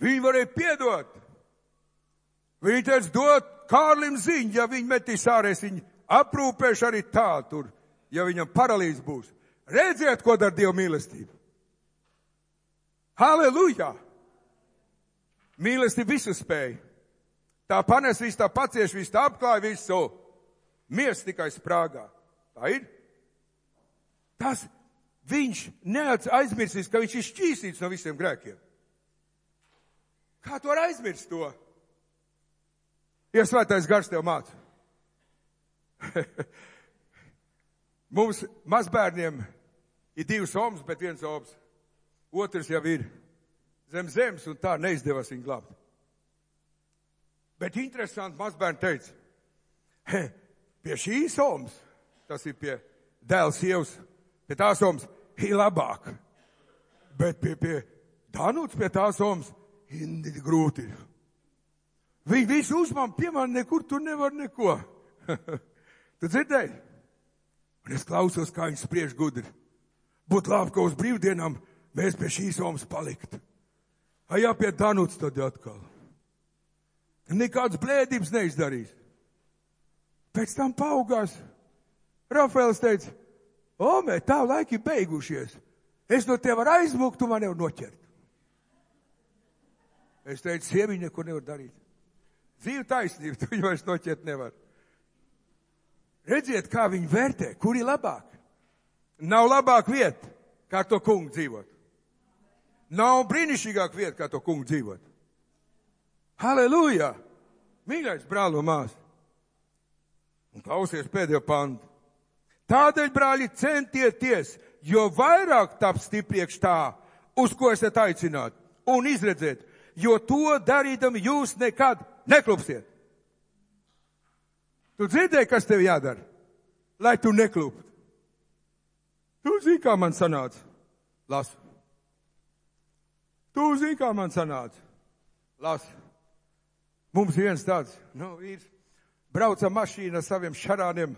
S2: Viņa varēja piedot. Viņa teica, dot Kārlim ziņu, ja viņa metīs ārēs, viņa aprūpēšu arī tā tur, ja viņam paralīze būs. Redziet, ko dara Dieva mīlestība. Halleluja! Mīlestība visu spēja. Tā panes visu, tā pacieš visu, tā apklāja visu. Miers tikai sprāgā. Tā ir. Tas viņš neaizmirsīs, ka viņš ir šķīstīts no visiem grēkiem. Kā tu var aizmirst to? Ja svētais gars tev māca. Mums mazbērniem ir 2 omas, bet 1 oms. Otrs jau ir zem zemes, un tā neizdevās viņu glābt. Bet interesanti, mazbērni teica, pie šīs omas, tas ir pie dēla sievas, pie tās omas, ir labāk. Bet pie Danuts, pie tās omas, grūti ir. Viņi visu uzmām, pie man nekur tur nevar neko. Tu dzirdēji? Un es klausos, kā viņi spriež gudri. Būtu labi, ka uz brīvdienām mēs pie šīs omas palikt. Jā, pie Danuts tad atkal. Nekādas blēdības neizdarīs. Pēc tam paaugās. Rafaels teica, Omē, tā laiki beigušies. Es no tev varu aizmukt, tu man nevar noķert. Es teicu, sieviņa neko nevar darīt. Dzīve taisnība, tu viņu vairs noķert nevar. Redziet, kā viņi vērtē, kur ir labāk. Nav labāk vieta, kā to kungu dzīvot. Nav brīnišķīgāk vieta, kā to kungu dzīvot. Halleluja! Mīļais brāl un mās. Un klausies pēdējo pantu. Tādēļ, brāļi, centieties, jo vairāk taps stipriekš tā, uz ko esat aicināti, un izredzēt, jo to darīdami jūs nekad neklupsiet. Tu dzirdēji, kas tev jādara, lai tu nekluptu? Tu zini, kā man sanāca? Lasu. Tu zini, kā man sanāca? Lasu. Mums viens tāds, vīrs, brauca mašīna ar saviem šarāniem.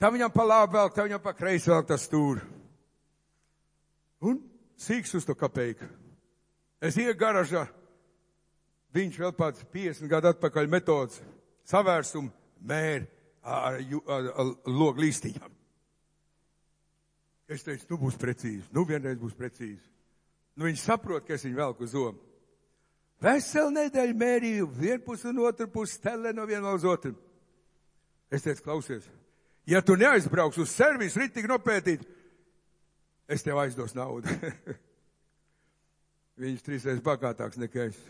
S2: Tā viņam pa labi velk, tā viņam pa kreisi velk tas stūri. Un sīks uz to kapeiku. Es ieju garažā, viņš vēl pats 50 gadu atpakaļ metodas, savērsumu mēri ar logu līstiņām. Es teicu, nu būs precīzi, vienreiz būs precīzi. Viņš saprot, ka es viņu velku uz zomu. Veselu nedēļu mērīju, vienpus un otru pusi stelē no viena uz otru. Es teicu, klausies, ja tu neaizbrauks uz servisu ritīgi nopētīt, es tev aizdos naudu. Viņš 3 reizes bagātāks nekā es.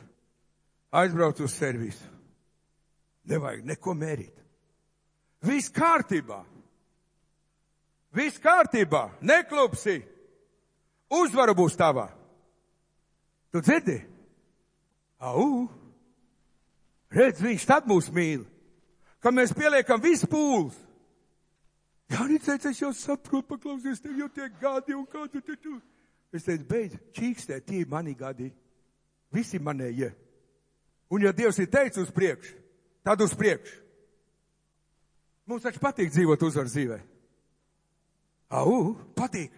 S2: Aizbrauc uz servisu. Nevajag neko mērīt. Viss kārtībā. Viss kārtībā. Neklupsi. Uzvara būs tavā. Tu dzirdi? Au. Redz, viņš tad mūs mīl. Kad mēs pieliekam visu pūles. Jānis teica, es jau saprotu, paklausies, tev jau tiek gadi un kā tu. Es teicu, beidz, čīkstē, tie mani gadi. Visi manējie. Un ja Dievs ir teicis uz priekšu, tad uz priekšu. Mums taču patīk dzīvot uzvaru dzīvē. Au, patīk.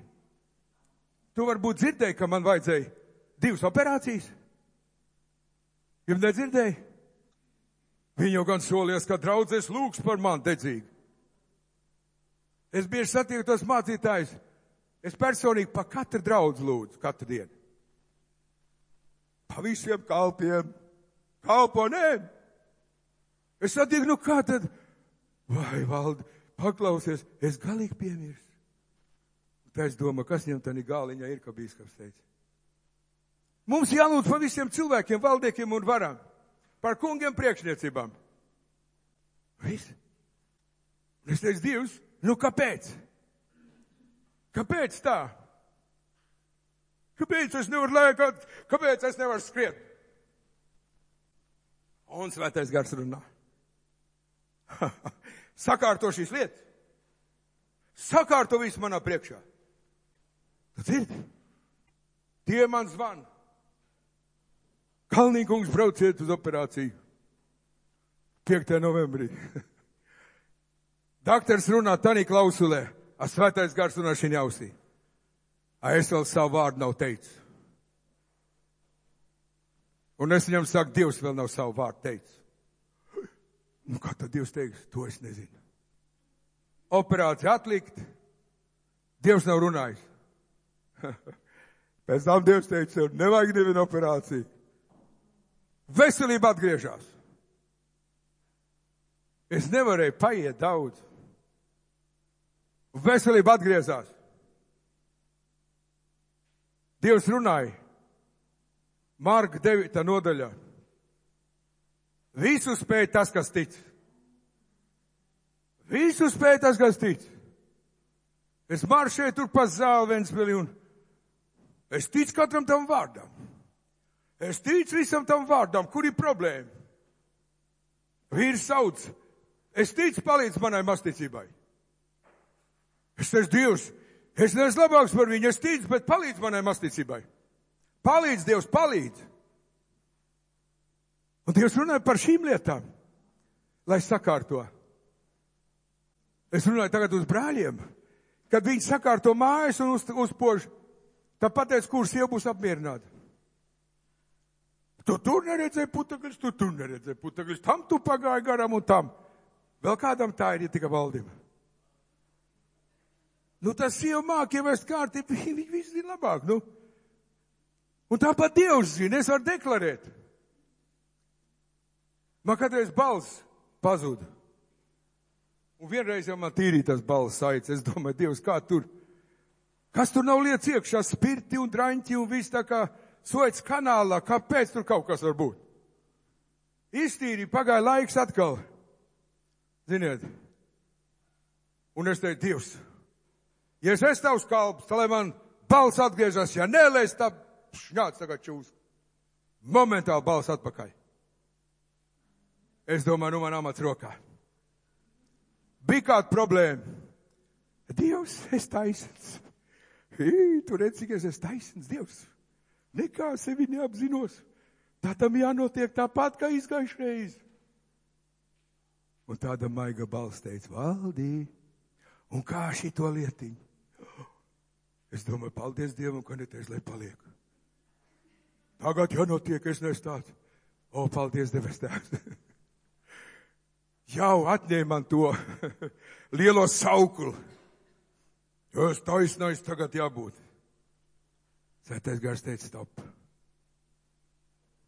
S2: Tu varbūt dzirdēji, ka man vajadzēja 2 operācijas. Jums nedzirdēji? Viņi jau gan solījās, ka draudzes lūgs par mani dedzīgi. Es bieži satieku tos mācītājus. Es personīgi pa katru draudzi lūdzu, katru dienu. Pa visiem kalpiem, kalponēm. Es satieku, kā tad? Vai, Valdi, paklausies, es galīgi piemirstu. Tā es domāju, kas viņam tādā gāliņā ir, kā bīskaps teica. Mums jālūdz par visiem cilvēkiem, valdniekiem un varam. Par kungiem priekšniecībām. Viss. Un es teicu, Dievs, kāpēc? Kāpēc tā? Kāpēc es nevaru lēkāt? Kāpēc es nevaru skriet? Un Svētais Gars runā. Sakārto šīs lietas. Sakārto visu manā priekšā. Tu dzirdi? Tie man zvana. Kalnīkungs, brauciet uz operāciju. 5. novembrī. Daktars runā tanī klausulē. A Svētais Gars runā šī ausī. A es vēl savu vārdu nav teicis. Un es viņam saku, Dievs vēl nav savu vārdu teicis. Kā tad Dievs teiks? To es nezinu. Operācija atlikt. Dievs nav runājis. Pēc tam Dievs teica, nevajag nevienu operāciju. Veselība atgriežās. Es nevarēju paiet daudz. Veselība atgriezās. Dievs runāja. Marka 9. nodaļā. Visu spēj tas, kas tic. Visu spēj tas, kas tic. Es maršēju tur pa zāli Ventspilī un es ticu katram tam vārdam. Es ticu visam tam vārdam. Kur ir problēma? Vīrs sauc. Es ticu, palīdz manai masticībai. Es teicu, Dievs, Es neesmu labāks par viņu, es ticu, bet palīdz manai masticībai. Palīdz, Dievs, palīdz. Un Dievs runāja par šīm lietām, lai sakārto. Es runāju tagad uz brāļiem, kad viņi sakārto mājas un uzpož, tad pateic, kurš jau būs apmierināti. Tu tur neredzēji putekļus, tu tur neredzēji putekļus, tam tu pagāji garam un tam. Vēl kādam tā ir, ja tika valdība. Nu, tas sieva māk ievest kārtību, viņi visi zina labāk, nu. Un tāpat Dievs zina, es varu deklarēt. Man kādreiz balss pazuda. Un vienreiz jau man tīrīja tas balss saites. Es domāju, Dievs, kā tur? Kas tur nav lietas iekšā? Spirti un draņķi un viss tā kā Suets kanālā. Kāpēc tur kaut kas var būt? Iztīrīja, pagāja laiks atkal. Ziniet. Un es teicu, Dievs, ja es esmu tavs kalps, tad lai man balss atgriežas. Ja nē, lai es tā šņāc tagad čūs. Momentāli balss atpakaļ. Es domāju, nu man amats rokā. Bija kāda problēma. Dievs, es taisns. Tu redz, cik es esmu taisns, Dievs. Nekā sevi neapzinos. Tā tam jānotiek tāpat, kā izgājušreiz. Un tāda maiga balss teica, Valdī, un kā šito lietiņu? Es domāju, paldies Dievam, ka neteicu, lai paliek. Tagad jānotiek, es nestātu. O, paldies, Debes Tēvs. Jau atņēma man to lielo sauklu. Jo es taisnais tagad jābūt. Svētais Gars teica, stop.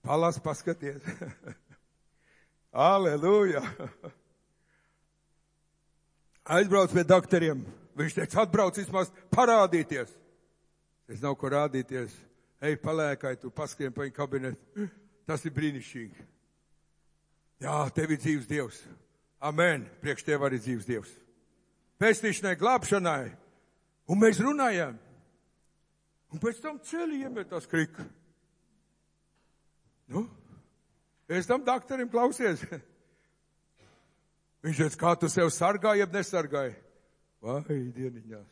S2: Palas, paskaties. Aleluja. Aizbrauc pie doktoriem. Viņš teica, atbrauc vismaz parādīties. Es nav ko rādīties. Ej, palēkai, tu paskrien pa viņu kabinetu. Tas ir brīnišķīgi. Jā, tev ir dzīves Dievs. Amen. Priekš tev arī dzīves Dievs. Pestīšanai, glābšanai. Un mēs runājām. Un pēc tam ceļi iemetās krika. Nu, es tam doktorim klausies. Viņš teica, kā tu sev sargāji, jeb nesargāji? Vai, dieniņās.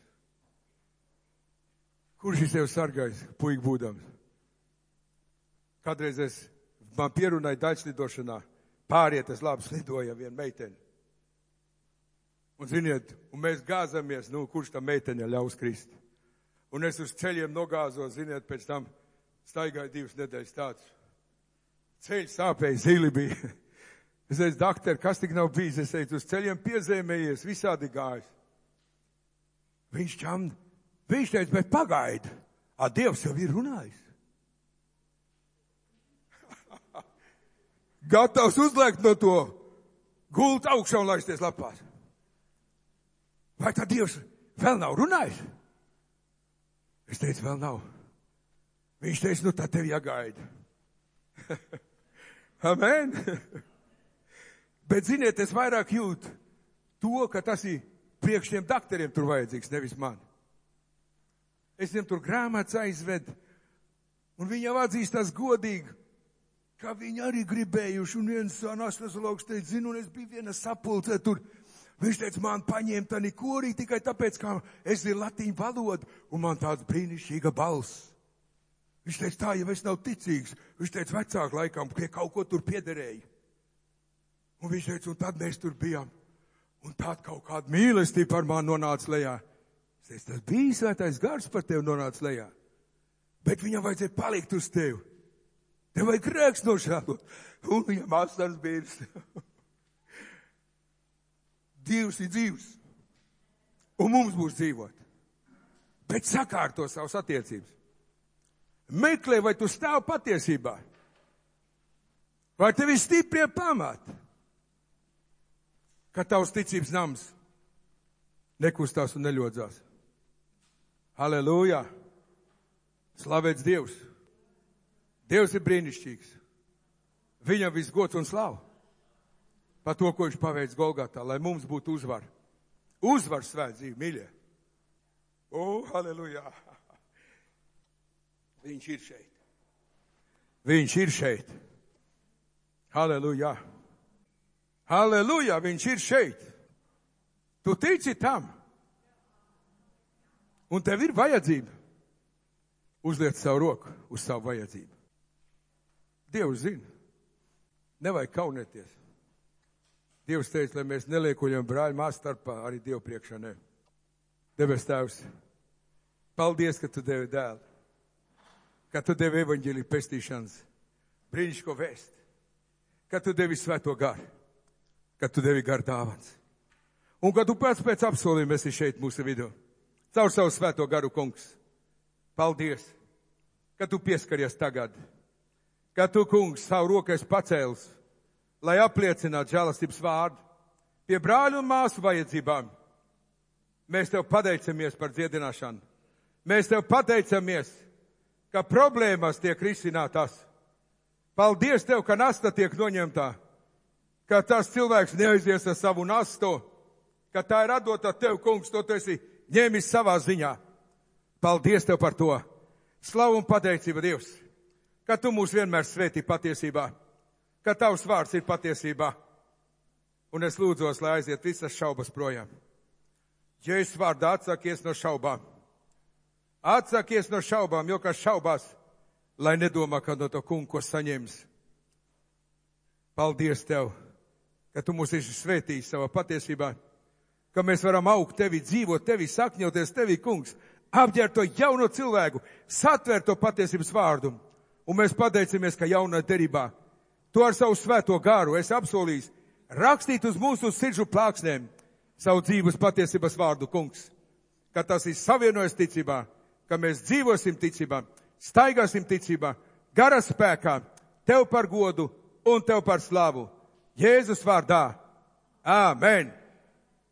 S2: Kurš ir sev sargājis, puika būdams? Kādreiz man pierunāja daļslidošanā. Pārietas labi slidoja viena meitene. Un ziniet, un mēs gāzamies, nu, kurš tam meitene ļaus krist. Un es uz ceļiem nogāzos, ziniet, pēc tam staigāju 2 nedēļas tāds. Ceļš sāpēja, zili bija. Es teicu, doktor, kas tik nav bijis? Es teicu, uz ceļiem piezēmējies, visādi gājis. Viņš teica, bet pagaidi, Dievs jau ir runājis. Gatavs uzliekt no to gultu augšā un laisties lapās. Vai tad Dievs vēl nav runājis? Es teicu, vēl nav. Viņš teica, nu tad tev jāgaida. Amen. Bet, ziniet, es vairāk jūtu to, ka tas ir priekš tiem doktoriem tur vajadzīgs, nevis man. Es viņam tur grāmatas aizvedu, un viņi jau atzīstās godīgi, ka viņi arī gribējuši, un viens anestezologs teica, zinu, un es biju viena sapulcē tur. Viņš teica, man paņēma tani korī tikai tāpēc, ka es zinu latīņu valodu, un man tāds brīnišķīga balss. Viņš teica, tā jau es nav ticīgs. Viņš teica, vecāk laikam, ka kaut ko tur piederēja. Un viņš teica, un tad mēs tur bijām. Un tād kaut kāda mīlestība par mani nonāca lejā. Es teicu, tas bija Svētais Gars par tevi nonāca lejā. Bet viņam vajadzēja palikt uz tevi. Tev vajag grēks nožēlot. Un viņam asaras bīrs. Dievs ir dzīvs. Un mums būs dzīvot. Bet sakārto savas attiecības. Meklē, vai tu stāv patiesībā. Vai tev ir stiprie pamati. Ka tavs ticības nams nekustās un neļodzās. Halleluja! Slavēts Dievs! Dievs ir brīnišķīgs. Viņam viss gods un slava. Par to, ko viņš paveic Golgatā, lai mums būtu uzvar. Uzvar svēt dzīvi, mīļie. O, halleluja! Viņš ir šeit. Viņš ir šeit. Halleluja! Halleluja! Viņš ir šeit. Tu tici tam? Un tev ir vajadzība. Uzliec savu roku uz savu vajadzību. Dievs zina. Nevajag kaunēties. Dievs teica, lai mēs neliekuļam brāļu māsu starpā, arī Dievu priekšā ne. Debes Tēvs, paldies, ka tu devi dēlu. Ka tu devi evaņģēliju pestīšanas brīnišķīgo vēst. Ka tu devi svēto garu. Ka tu devi garu dāvans. Un ka tu pēc apsolījuma esi šeit mūsu vidū. Caur savu svēto garu, kungs. Paldies, ka tu pieskaries tagad. Ka tu, kungs, savu rokas pacēlis, lai apliecinātu žēlastības vārdu pie brāļu un māsu vajadzībām. Mēs tev pateicamies par dziedināšanu. Mēs tev pateicamies, ka problēmas tiek risinātas. Paldies tev, ka nasta tiek noņemtā. Ka tas cilvēks neaizies ar savu nastu. Ka tā ir atdota tev, kungs, to tu esi ņēmis savā ziņā. Paldies tev par to. Slavu un pateicība, Dievs, ka tu mūs vienmēr svētī patiesībā, ka tavs vārds ir patiesībā. Un es lūdzos, lai aiziet visas šaubas projām. Jēzus vārdā atsakies no šaubām. Atsakies no šaubām, jo kas šaubās, lai nedomā, ka no to kungu, ko saņems. Paldies tev, ka tu mūs esi svētījis savā patiesībā, ka mēs varam augt tevi, dzīvot tevi, sakņoties tevi, kungs, apģērt to jauno cilvēku, satvērt to patiesības vārdu. Un mēs pateicamies, ka jaunā derībā tu ar savu svēto garu esi apsolījis rakstīt uz mūsu sirdžu plāksnēm savu dzīves patiesības vārdu, kungs. Ka tas ir savienojas ticībā, ka mēs dzīvosim ticībā, staigāsim ticībā, gara spēkā, tev par godu un tev par slavu. Jēzus vārdā. Āmen.